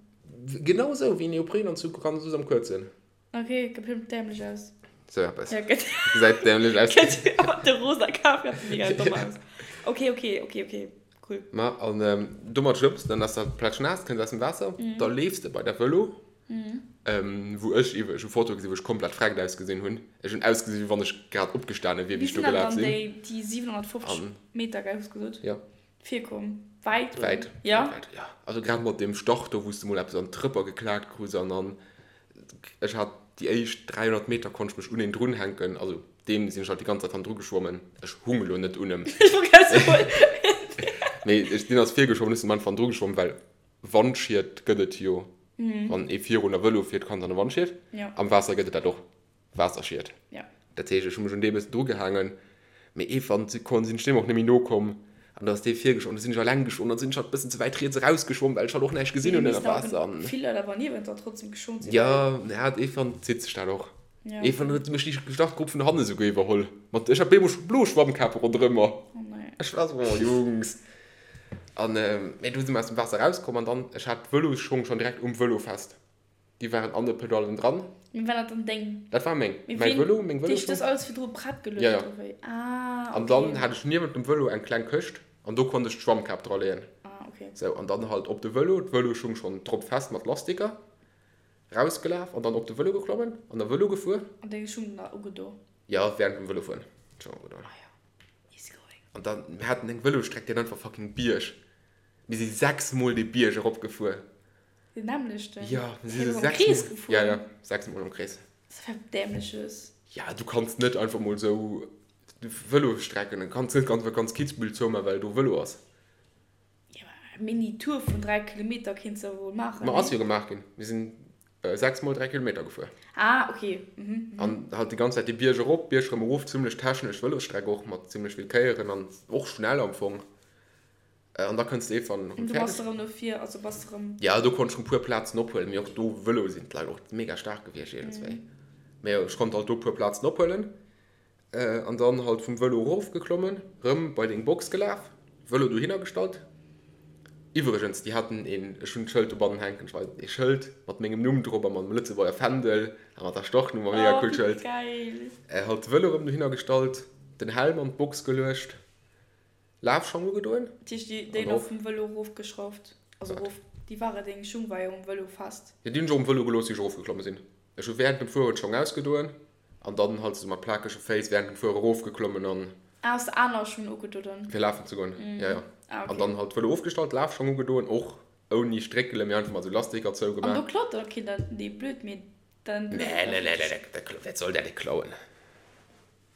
Genau esou, wéi en Neoprenanzug, ganz sou am kuerzen. Ok, gëtt bestimmt dämlech aus. Sou eppes. Ja, gëtt. Gesäit dämlech aus. Gëtt mat de rosa Kaf gëtt mega domm aus. Ok, ok, ok, ok, cool. Ma an domat schwëmms de, dann ass dat plätschnaass, kënns aus dem Waasser, da leefs de bei der Vëlo, wou ech iwwer, ech hu Fotoe gesinn, wou ech komplett freckt ausgesinn hunn. Ech hunn ausgesinn, wéi wann ech grad opgestane wier, Wéi wéi ech do sinn dat gelaf dann sinn. déi, déi 750 An. Meter, gell, hues gesot? Ja. Virkomm? Wäit? Oder? Wäit. Ja? Wäit, ja. Also grad mat deem Start do, wou s de mol eppes an d'Trëpper geklaakt krus an dann, ech hat déi éischt 300 Meter konnt ech mech un een drunhänken, also deem sinn ech halt déi ganz Zäit hannendru geschwommen. Ech hung elo net un em. Ech wollt grad soen. Mee ech, deen ass virgeschwommen, ech sinn am Anfang hannendru geschwommen, well Wandschied gëtt et jo, wann ee virun a Vëlo fiert, kann et an e Wandschied. Am Waasser gëtt et dat och. Waasserschied. Ja. Dat heescht, ech hu mech un dee bëssen drugehaangen, mee iergendwann si kon sinn ech deem och net méi nokomm an da ass dee virgeschwommen, da sinn ech alleng geschwommen, dann sinn ech halt bëssen ze wäit riets erausgeschwommen, well ech halt och näischt gesinn hunn ënner Waasser an. Vill Leit awer niewent der trotzdem geschwommen sinn. Ja, ja, iergendwann zitt sech dat och. Ja. Iergendwann huet mech déi Startgrupp vun hanne souguer iwwerholl mat, ech hat bemol scho blo Schwammkape ronderëm mer. Oh nee. Ech war esou, oh Jungs. An, mee du si mer aus dem Waasser erauskomm an dann, ech hat d'Vëlosschong schonn direkt um Vëlo fest. Déi waren an de Pedallen dran. Mee war dat dann deng? Dat war meng. Mee Mäi ween, Vëlo, meng huet Vëlosschong. das alles virdru prett geluecht Ja, ja. oder wéi? Ah, An dann okay. hat ech niewent dem Vëlo eng kleng Këscht an do konnt ech d'Schwammkap dra leeën. Ah, okay. Sou, an dann halt op de Vëlo, d'Vëloschung schonn drop fest mat Lastiker, rausgelaf an dann op de Vëlo geklommen an da Vëlo gefuer. An deng Schung dann ugedo? Ja, während dem Vëlofueren d'Schong ugedo. Ah ja, easy going. An dann, mir haten eng Vëlosstreck, déi hat einfach fucking Bierg. Mir si sechsmol dee Bierg eropgefuer. Den nämmlechten? Ja, mir si Hey, sou am Krees sechsmol. gefuer? Ja, ja, sechsmol am Krees. Dat ass wat Dämleches. Ja, du kanns net einfach mol sou Vëlosstrecken, du kanns net einfach ganz Kitzbühel zouman, well do Vëlo ass. Ja, ma eng Mini-Tour vun 3 Kilometer kéints de wuel maachen, Ma ass nee? jo gemaach ginn. Mir sinn sechsmol 3 Kilometer gefuer. Ah, okay. Mhm, mhm. An halt déi ganz Zäit de Bierg erop, Bierg rëm erof, zimmlech technesch Vëlosstreck och, mat zimmlech vill Kéieren an och schnell am Fong. An da kënns de iergendwann An erëm du bass fäerdeg. erëm no vir, also bass de erëm. Jo, do konnt ech rëm puer Plazen ophuelen, mee och do Vëlo sinn d'Leit och mega staark gewiescht iergendswéi. Mee jo, ech konnt halt do puer Plazen ophuelen an dann halt vum Vëlo erofgeklommen, rëm bei deng Box gelaf, Vëlo dohinner gestallt. Iwwregens, déi haten een, ech hunn d'Schëld dobannen hänken, ech weisen et, ee Schëld mat mengem Numm drop a mam Lëtzebuerger Fändel a mat der Startnummer, mega Oh, coolt wéi Schëld. geil! Halt de Vëlo rëm dohinner gestallt, den Helm an d'Box geluecht. Lafschong ugedoen. Dat heescht déi déi nach vum Vëlo erofgeschrauft, also erof, déi ware deng Schung war jo um Vëlo fest. Jo, déi hunn ech och um Vëlo gelooss wéi ech erofgeklomme sinn. Ech hu während dem Fueren d'Schong ausgedoen an dann halt esou mat plakege Féiss während dem Fuere erofgeklommen an. Ah, has de aner Schung ugedo dann? Fir lafen ze goen, jo jo. Ah, okay. An dann halt Vëlo ofgestallt, Lafschong ugedoen, och ouni Stréckelen, mee einfach mat sou Lastiker zougemaach. An do klaut dann och keen dat? Nee, blöd, mee dann. Nee, nee, nee, nee, dat, wat soll dat ee klauen?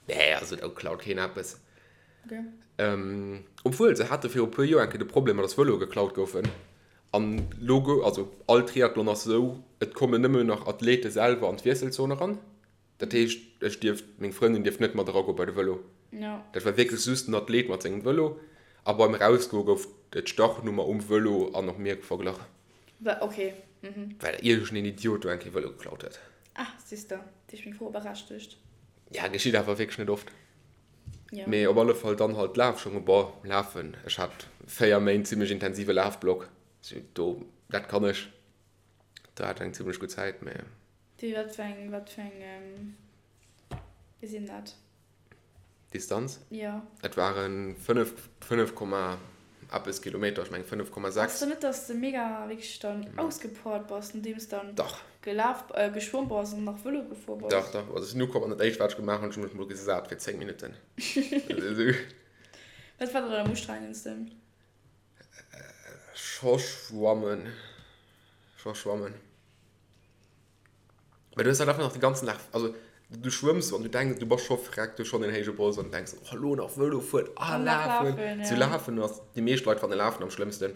Nee, also do klaut keen eppes. Okay. Obwuel, se hate viru puer Joer eng Kéier de Problem, dass Vëloe geklaut goufen. An lo gou, also all Triathlon ass esou, et kommen nëmmen nach Athlete selwer an d'Wiesselzon eran. Dat heescht, ech dierft, meng Frëndin dierft net mat eragoe bei de Vëlo. Dat war wierklech just den Athlet mat sengem Vëlo. A beim Erausgoe gouf d'Startnummer um Vëlo an och mir verglach. Okay. Well iergendeen Idiot do eng Kéier Vëlo geklaut huet. Ah, siehst de, dat heescht meng Fro berechtegt. Ja, geschitt awer wierklech net oft. Ja. Mee op alle Fall dann halt Lafschong. Bon, lafen, ech hat 4 Méint zimmlech intensive Lafblock, sou do, dat kann ech. Do hat ech eng zimmlech gutt Zäit, mee. Wéi, wat fir eng, wat fir eng, wéi sinn dat? Distanz? Jo. Et waren 5, 5 Komma eppes Kilometer, ech mengen 5,6. Ass dann net, dass de mega wierklech dann ausgepowert bass, nodeems dann Dach. gelaf, geschwommen bass an nach Vëlo gefuer bass? Dach, dach. Also ech sinn ukomm an dat éischt wat ech gemaach hunn, ech hu mech mol gesat fir 10 Minutten. Wat war dann am ustrengendsten? Scho schwammen. Scho schwammen. Well du hues halt einfach nach de ganzen Dag, also du schwëmms an du denks, du bass scho vreckt, du hues schonn en héije Bols an du denks, oh elo nach Vëlo fueren, ah lafen. Zu lafen ass, déi meescht Leit fannen Lafen am schlëmmsten.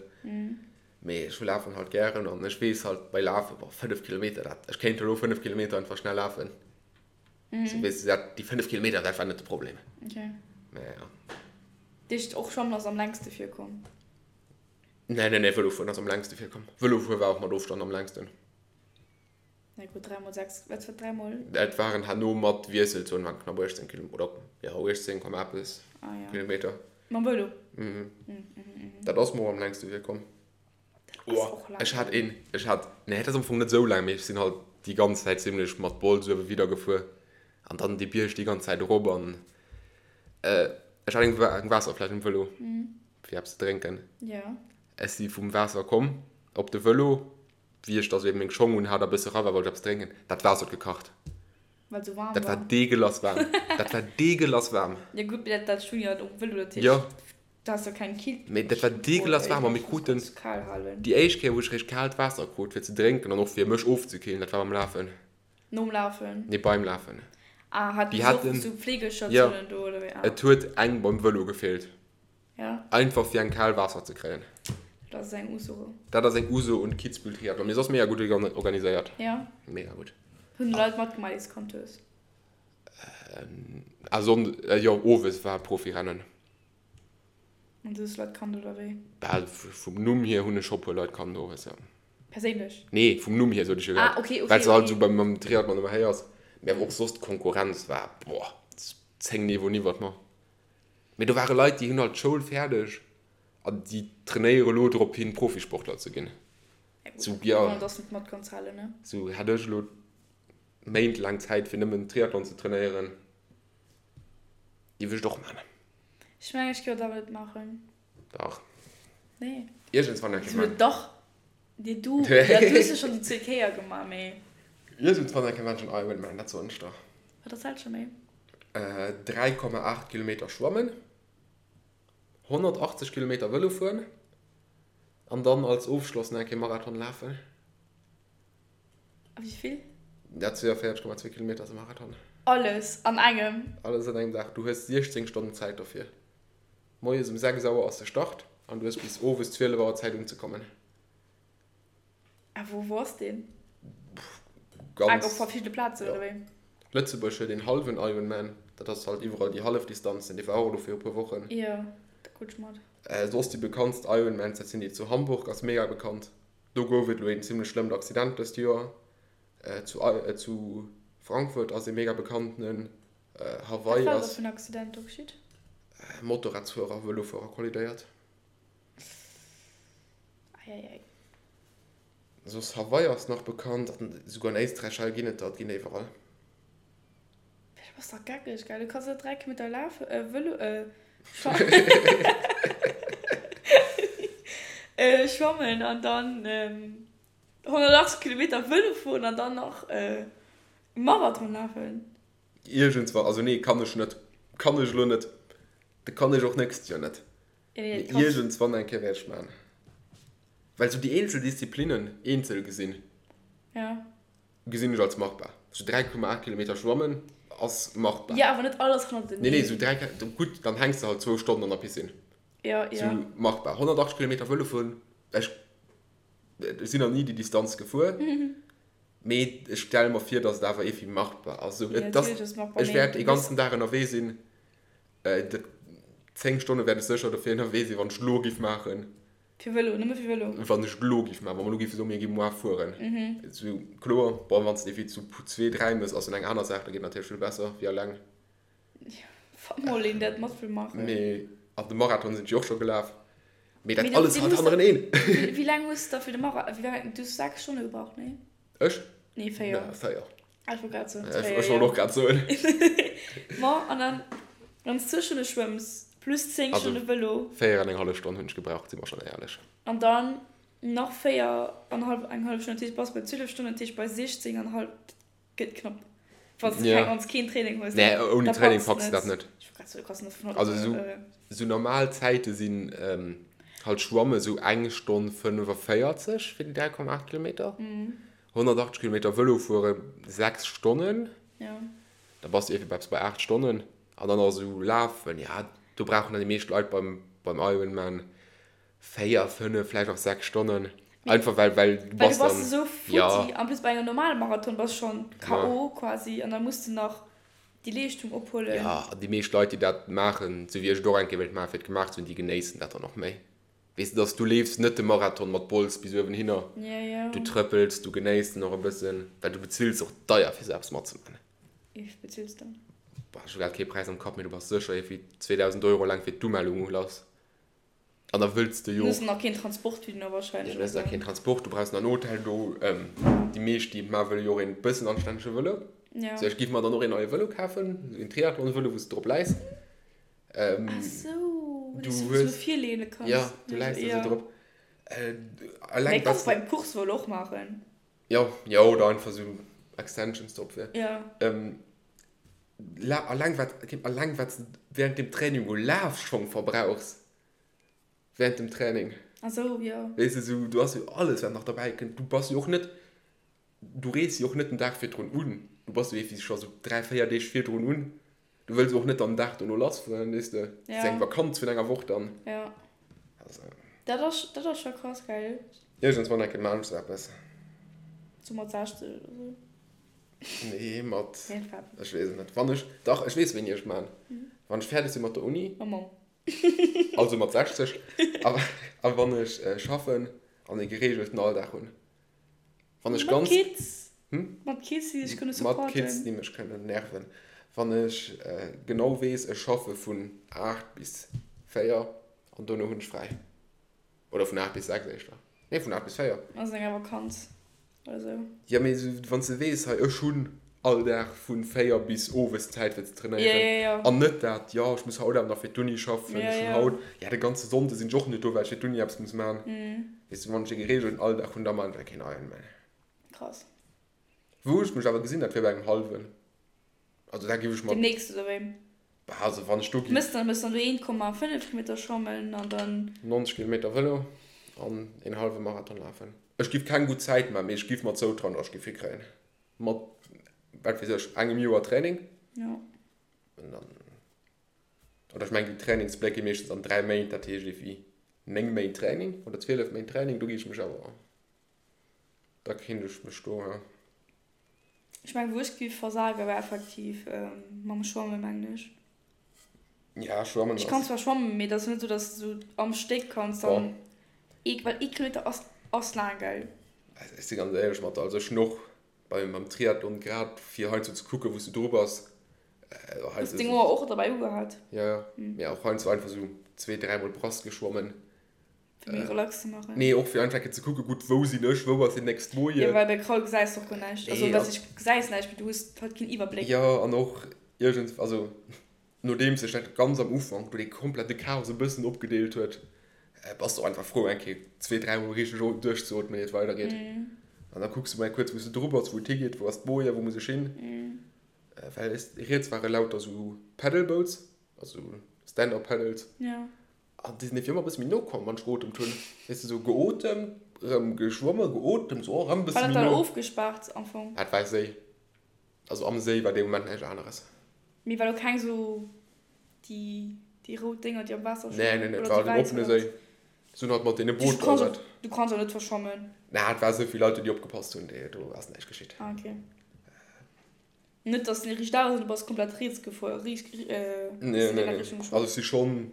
Mee ech lafen halt gären an ech weess halt bei Lafen, boah 5 Kilometer, dat, ech kéint elo 5 Kilometer einfach schnell lafen. Sou weess du, dat, déi 5 Kilometer, dat war net de Problem. Mee ja. Dat heescht och Schwammen ass am längste virkomm? Nee, nee, nee, Vëlo fueren ass am längste virkomm. Vëlo fuere war och mat Ofstand am längsten. Na gutt, 3 mol 6, wat war 3 mol? Et waren herno mat Wiesselzon waren knapp 18 Kilo, oder jo 18 Komma eppes ah, ja. Kilometer. Mam Vëlo? Mhm. Mm, mm, mm. Dat ass mer och am längste virkomm. Oh, ech hat een, ech hat, nee, dat ass am Fong net esou laang, mee ech sinn halt déi ganz Zäit zimlech mat Bols uewe widder gefuer an dann déi Bierg déi ganz Zäit erop an äh, ech hat eng, eng Waasserfläsch um Vëlo, mm. fir eppes ze drénken. Ja. Ech si vum Waasser komm op de Vëlo, Wéi ech da sou eben meng Schong un hat a bësse ra war, wollt ech eppes drénken. Dat Waasser huet gekacht. Well et sou waarm Dat war war. deegelass waarm. Dat war deegelass waarm. Jo gutt, mee dat dat Schung jo um Vëlo, dat heescht, Jo. du has jo keng Kill. Mee dat war deegelass waarm a mir kruten kal halen. déi éischt Kéier, wou ech réischt kaalt Waasser krut fir ze drénken an och fir mech ofzekillen, dat war beim Lafen. Nom Lafen? Nee, beim Lafen. Ah, haten Déi se och haten, sou jo, Pflegestatiounen do oder wéi? Ah. Et huet eng beim Vëlo gefeelt. Ja. Einfach fir eng kal Waasser ze kréien. Dat ass eng Uso. Dat ass eng Uso und Kitzbühel Triathlon. Mee soss mega gutt organiséiert. Ja. Mega gutt. Hunn Leit matgemaach déi s kannt hues? Ah Sonn, jo owes war Profirennen. An du hues Leit kannt oder wéi? Bal vum Numm hier hunn ech scho puer Leit kannt owes, jo. Perséinlech? Nee, vum Numm hier sot ech jo grad. Ah okay, okay, Well se halt esou beim mam Triathlon ëmmer héiers. Mee awer och soss d'Konkurrenz war, boah, 10 Niveauen iwwert mer. Mee do ware Leit, déi hunn halt d'Schoul fäerdeg an déi trainéiere elo drop hin, Profisportler ze ginn. Sou, ja. Sou hätt ech elo méintlaang Zäit, fir nëmmen Triathlon ze trainéieren, géif ech et och maachen. Ech mengen, ech géif et awer net maachen. Dach. Nee. Iergendswann eng Kéier maachen. Dach. Nee, du, ja, du hues jo schonn déi zweet Kéier gemaach, mee. Iergendswann eng Kéier maachen ech en Ironman, dat soen ech der. Wat ass dat scho méi? 3,8 Kilometer schwammen, 180 Kilometer Vëlo fueren an dann als Ofschloss nach eng Kéier Marathon lafen. A wéi vill? Ja, 42,2 Kilometer ass e Marathon. Alles an engem? Alles an engem Dag. Du hues 16 Stonnen Zäit dofir. Moies um 6 Auer ass de Start an du hues bis owes 12 Auer Zäit unzekommen. A wou wou ass deen? Ganz. Ah, op verschiddene Plazen, oder wéi? Lëtzebuerg huet een hallwen Ironman, dat ass halt iwwerall déi hallef Distanzen, dee war och elo viru puer Wochen. Jo, da krut ech mat. Soss déi bekanntst Ironmans, dat sinn déi zu Hamburg, ass mega bekannt. Do gouf et elo een zimmlech schlëmmt Accident dëst Joer. Zu zu Frankfurt ass ee mega bekanntenen. Hawaii ass. Wat war do fir en Accident do geschitt? Motorradsfuerer a Vëlofuerer kollidéiert. Eieiei. Soss Hawaii ass nach bekannt an esouguer an Éisträich hei ginn et der, et ginn der iwwerall. Du bass dach geckeg, gell? Du kanns net 3 Kilometer lafen, Vëlo, schwammen an dann 180 Kilometer Vëlo fueren an dann nach Marathon lafen. Iergendswann, also nee, kann ech net, kann ech elo net. Dat kann ech och nächst Joer net. Mee iergendswann eng Kéier wäert ech maachen. Well sou déi eenzel Disziplinnen eenzel gesinn, gesinn ech als machbar. Sou 3,8 Kilometer schwammen ass machbar. Jo, awer net alles hannerteneen. Nee, nee, sou 3, gutt, dann hänks de halt zwou Stonnen an der Piscine. Sou machbar. 180 Kilometer Vëlo fueren, ech sinn nach ni déi Distanz gefuer, mee ech stelle mer vir, datt et awer iergendwéi machbar ass. Sou, et ass, ech wäert ee ganzen Dag ënnerwee sinn. 10 Stonne wäert ech sécher dofir ënnerwee sinn, wann ech et elo giff maachen. Fir Vëlo, nëmme fir Vëlo? Wann ech et elo giff maachen, wa mer elo giffe soen, mir gi moar fueren. Esou, kloer, bon, wann s de ewéi zu zwee, dräi mëss, ass dann eng aner Saach, da geet natierlech vill besser wéi alleng. Jo, wa mol een dat mat wëll maachen. Mee, an de Marathon sinn ech jo och scho gelaf. Mee dat alles halt hannereneen. Wéi laang hues de da fir de Marathon, wéi laang, du hues 6 Stonne gebraucht, nee? Ech? Nee, 4. Nee, 4. Ah, ech wollt grad soen, Ech wollt och grad soen. Ma, an dann, wann s du Stonne schwëmms, plus 10 Stonne Vëlo. 4 an eng hallef Stonn hunn ech gebraucht, si mer schonn éierlech. An dann nach 4 an hallef, eng hallef Stonn, dat heescht, bass bei 12 Stonnen, dat heescht bei 16 an hallef, dat gëtt knapp. Wann s du keng, wann s keen Training hues, Nee, ouni Training packs du dat net. Ech wollt grad soen, du kanns net vun haut op. Also esou, esou normal Zäite sinn halt schwamme sou eng Stonn 45 fir déi 3,8 Kilometer. 180 Kilometer Vëlo fuere 6 Stonnen, da bass de iergendwéi eppes bei 8 Stonnen. An dann nach esou lafen, ja, do brauchen dann déi meescht Leit beim, beim Ironman 4, 5, vläicht och 6 Stonnen. Einfach well, well du bass dann. Well du bass esou futti. En plus bei engem normale Marathon bass schonn KO quasi an da muss de nach déi Leeschtung ophuelen. Jo, an déi meescht Leit, déi dat maachen, esou wéi ech et och eng Kéier wéilt maachen, fir et gemaach ze hunn, déi genéissen dat dann och méi. Weess de, dass du leefs net de Marathon mat Bols bis uewen hinner. Du trëppels, du genéiss den och e bëssen, well du bezills och deier fir sou eppes matzemaachen. Wéi vill bezills de? Boah, ech hu grad kee Präis am Kapp, mee du bass sécher iergendwéi 2.000 Euro eleng fir d'Umellung u lass. An da wëlls de jo. Du hues nach keen Transport wéi du wahrscheinlech. Du hues nach keen Transport, du brauchs nach en Hotel do. Déi meescht, déi et maachen, wëlle jo och een bëssen anstännege Vëlo. Sou, ech giff mer dann och een neie Vëlo kafen, een Triathlon-Vëlo, wou s de drop läis. Ähm, Ach so, du hues so virlehne kannst. Ja, du läis ja. so drop. Äh, allein kannst beim Kursvëlo och maachen. Ja, ja, oder einfach so Extensions drop fir. Ja. Ähm, la, alleng wat, alleng wat du während dem Training u Lafschong verbrauchs. Während dem Training. Ach so, ja. Weess du, so, du hast jo alles wat nach dabei kënnt. Du bass jo och net, du rees jo och net den Dag virdrun un. Du bass jo ewéi scho sou 3, 4 Deeg virdrun un. Du wëlls och net dann den Dag dono lass fueren, weess de. Dat ass eng Vakanz vun enger Woch dann. Ja. Also. Dat ass, dat ass scho krass, gell? Iergendswann eng Kéier maan ech sou eppes. Sou mat 60 oder sou? Nee, mat, ech weess et net. Wann ech, dach, ech weess wéini ech et maan. Wann ech fäerdeg si mat der Uni. Mam Mamm. Also mat 60. A, a wann ech schaffen an e gereegelten Alldag hunn. Wann ech ganz. Mat Kids. Hm? Mat Kids, déi dech kënne supporten. Mat Kids, déi mech kënnen nerven. Wann ech genau weess, ech schaffe vun 8 bis 4 an dono hunn ech fräi. Oder vun 8 bis 6 éischter. Nee, vun 8 bis 4. Ass enger Vakanz oder sou. Jo, mee wann s de weess, hei ech hunn all Dag vu 4 bis owes Zäit fir ze trainéieren. Ja, ja, ja. An net dat, jo, ech muss haut awer nach fir d'Uni schaffen, ech hunn haut, ja, de ganze Sonnde sinn ech och net do, well ech fir d'Uni eppes muss maachen. Weess de, wann ech e gereegelten Alldag hunn, da maachen ech keen Ironman. Krass. Wou ech mech awer gesinn, dat wier bei engem hallwen. Also da giff ech mer. Demnächst oder wéi? Bah, also wann ech do giff. Mëss dann, mëss dann do 1,5 Kilometer schwammen an dann. 90 Kilometer Vëlo an een hallwe Marathon lafen. Ech giff keng gutt Zäit maachen, mee ech giff mer zoutrauen, datt ech giff hikréien. Mat, wat weess ech, engem Joer Training. Jo. An dann. Oder ech mengen, déi Trainingspläng gi meeschtens an 3 Méint, dat heescht ewéi 9 Méint Training oder 12 Méint Training, do gi ech mech awer, da kéint ech mech do, ja. Ech mengen, wou ech géif versagen, wär effektiv mam Schwammen, mengen ech. Ja, Schwammen ass. Ech kann zwar schwammen, mee et ass net esou, dass de esou am Stéck kanns dann, well ee Kilometer ass, ass laang, gell? Also ech si ganz éierlech mat der, also ech hunn och beim, beim Triathlon grad fir heiansdo ze kucken, wou s du dru bass, Hues deng Ouer och derbäi ugehat? Jo, jo. Mee och heiansdo einfach sou zwee, dräimol Brass geschwommen. Fir méi relax ze maachen? Nee, och fir einfach eng Kéier ze kucken, gutt, wou sinn ech, wou ass deen nächst Moie. Jo, well bei Kraul gesäis de och guer näischt. Also, wat heescht gesäis näischt, mee du hues halt keen Iwwerbléck. Jo, an och iergend, also nodeems sech dat ganz am Ufank do dee komplette Chaos e bëssen opgedeelt huet, bass de och einfach frou, eng Kéier zwee, dräimol richteg duerchzeootmen, ier et weidergeet. An da kucks de mol eng kuerz, wou s de dru bass, wou et higeet, wou ass d'Boje, wou muss ech hin. Well riets ware lauter sou Paddleboats, also. Stand-up Paddles. Ja. An déi sinn ewéi ëmmer e bësse méi no komm, wann ech geotemt hunn. Weess de, sou geotemt, erëm geschwommen, geotemt, sou, oh, erëm e bësse méi no. War dat dann ofgespaart am Fong? Dat war Séi. Also am Séi war dee Moment näischt aneres. Mee war do keng sou déi, déi rout Dénger, déi am Waasser schwammen? Nee, nee, nee, et war den oppene Séi. Se hunn halt mat deene Booter dat. Du kanns och net verschwammen. Naa, et war sou vill Leit, déi opgepasst hunn, do ass näischt geschitt. Ah, okay. Net dass den riicht aus an du bass komplett riets gefuer, riicht, äh, nee, nee, nee. Also ech si schonn,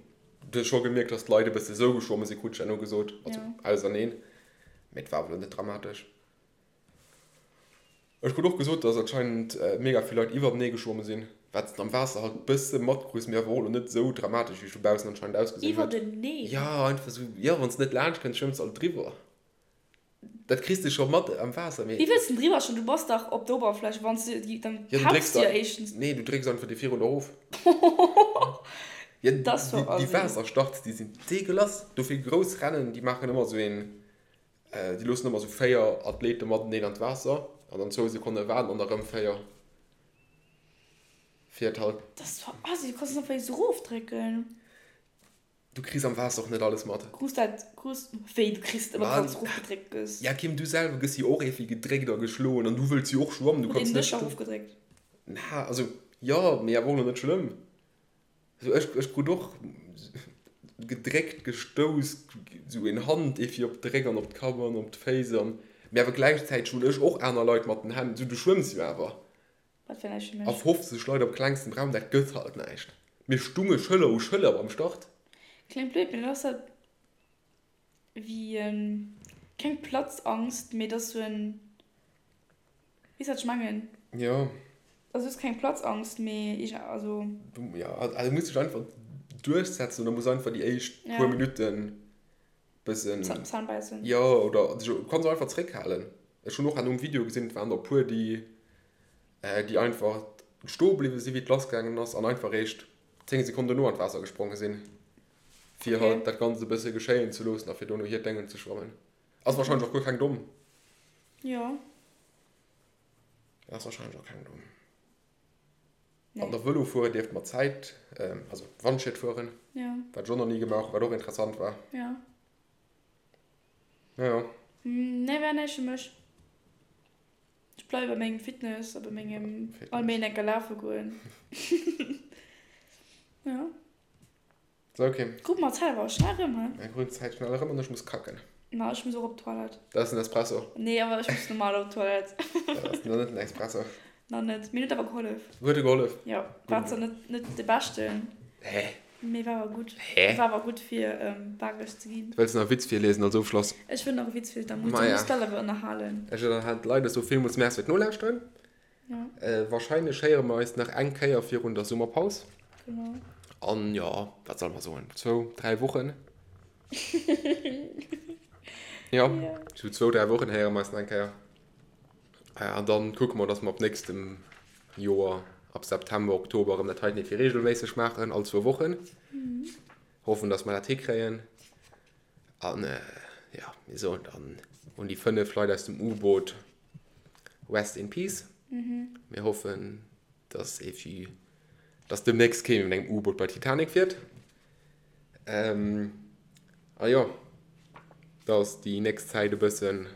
du hues scho gemierkt, dass d'Leit e bësse sou geschwomme sinn, krut ech herno gesot, also ja. Auserneen, mee et war awer lo net dramatesch. Ech krut och gesot, dass anscheinend mega vill Leit iwwertenee geschwomme sinn, wat s de am Waasser halt bësse matkriss, mee awer och lo net sou dramatesch, wéi et vu baussen anscheinend ausgesinn huet. Iwwerteneen? Ja, einfach sou, jo, wann s de net laanscht kënns, schwëmms de alt driwwer. Dat kriss de scho mat am Waasser, mee. Wéi wëlls de driwwer schwammen? Du bass dach op der Oberfläch. Wann s de, dann tauchs de jo éischtens. Nee, du drécks einfach déi virun erof. Ja, déi Waasserstarts, déi sinn deegelass. Dofir grouss Rennen, déi maachen ëmmer esou een, déi loossen ëmmer esou 4 Athlete mateneen an d'Waasser an dann zwou Sekonne waarden an da rëm 4. Fir et halt. Dat ass zwar assi, du kanns et einfach esou erofdrécken. Du kriss am Waasser och net alles mat. Krus dat, krus, wéi, du kriss et ëmmer wann s erofgedréckt gëss? Ja Kim, du selwer gëss jo och ierfwi gedréckt a geschloen an du wëlls jo och schwammen, du kanns net. Huet een dech erofgedréckt? Na, also jo, mee awer och lo net schlëmm. Also ech, ech krut och gedréckt, gestouss, sou een Hand ierfwi op de Réck an op d'Kapp an op d'Féiss an, mee awer gläichzäiteg hunn ech och aner Leit mat den Hänn, sou du schwëmms jo awer. Wat fir näischt fir mech. A 50 Leit op klengstem Raum, dat gëtt halt näischt. Mir stunge Schëller u Schëller beim Start. Kléngt blöd, mee dat ass dat wéi en, keng Platzangst, mee dat ass sou en, weess wat ech mengen? Jo. Also et ass keng Platzangst, mee iergend, also. Jo, also du muss dech einfach duerchsetzen oder muss einfach déi éischt puer Minutten bëssen. Zänn bäissen. Jo, oder du kanns och einfach zréckhalen. Ech hunn och an um Video gesinn, et waren der e puer, déi, déi einfach stoe bliwwe sinn, wéi et lassgaangen ass an einfach eréischt 10 Sekonnen dono an d'Waasser gespronge sinn, fir halt dat Ganzt e bësse geschéien ze loossen a fir dono hiert Déngen ze schwammen. Ass warscheinlech och guer keng domm. Jo. Ass warscheinlech och keng domm. An der Vëlo fueren dierft mat Zäit, also Wandschiet fueren, wat ech och nach ni gemaach hunn, wat och interessant war. Jo. Jo, jo. Nee, war näischt fir mech. Ech bleiwe bei mengem Fitness a bei mengem all Méint eng Kéier lafe goen. Jo. So, okay. Kuck mal, d'Zäit war schnell erëm, he? Mir kruten d'Zäit schnell erëm an ech muss kacken. Ma ech muss och op d'Toilette. Dat ass den Espresso. Nee, awer ech muss normal op d'Toilette. Dat ass nach net den Espresso. Nach net. Mir huet awer gehollef. Huet e gehollef? Jo. War zwar net, net de beschten. Hä? Mee war awer gutt. Hä? War awer gutt fir bakeg ze ginn. Wëlls de nach e Witz virliesen als Ofschloss? Ech wëll nach e Witz virliesen, da muss, da muss d'Leit awer ënnerhalen. Ech ënnerhalen d'Leit. Ech soe villmools Merci fir d'Nolauschteren. Wahrscheinlech héiere mer eis nach eng Kéier virun der Summerpaus. Genau. An jo, wat solle mer soen, zwou, dräi Wochen. Jo, sou zwou, dräi Wochen héiere mer eis nach eng Kéier. An dann kucke mer, dass mer ab nächstem Joer, ab September, Oktober erëm dat heiten fir reegelméisseg maachen, all zwou Wochen. Hoffen, dass mer dat hikréien. An jo, mir soen dann un déi 5 Leit aus dem U-Boot Rest in Peace. Mir hoffen, dass evi, dass demnächst kee méi mat engem U-Boot bei Titanic fiert. A jo, dass déi nächst Zäit e bëssen,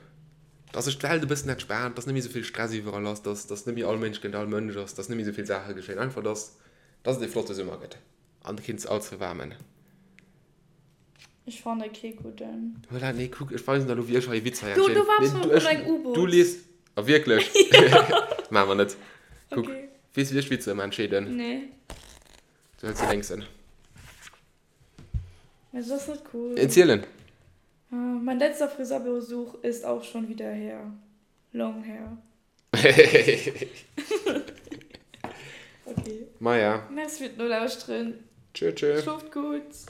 dass sech d'Welt e bëssen entspaant, dass net méi esou vill Stress iwwerall ass, dass, dass net méi all Mënsch géint all Mënsch ass, dass net méi esou vill Saache geschéien. Einfach, dass, dass et ee flotte Summer gëtt an keen ze all ze waarmen. Ech fanne kee gudden. Voilà, nee, kuck, ech weisen der elo, wéi ech hei e Witz hei Du, du waars nee, du, ech, U-Boot. Du lies. A wierklech? Maache mer net. Kuck, okay. Weess du, wéi ech Witzer ëmmer entscheeden? Nee. Du hëls de lénksen. Mä dat ass net cool. Erzielen. Mein letzter Friseurbesuch ist auch schon wieder her. Long hair. Okay. Maja. Merci fir d'Nolauschteren. Tschö, tschö. Schlooft gutt.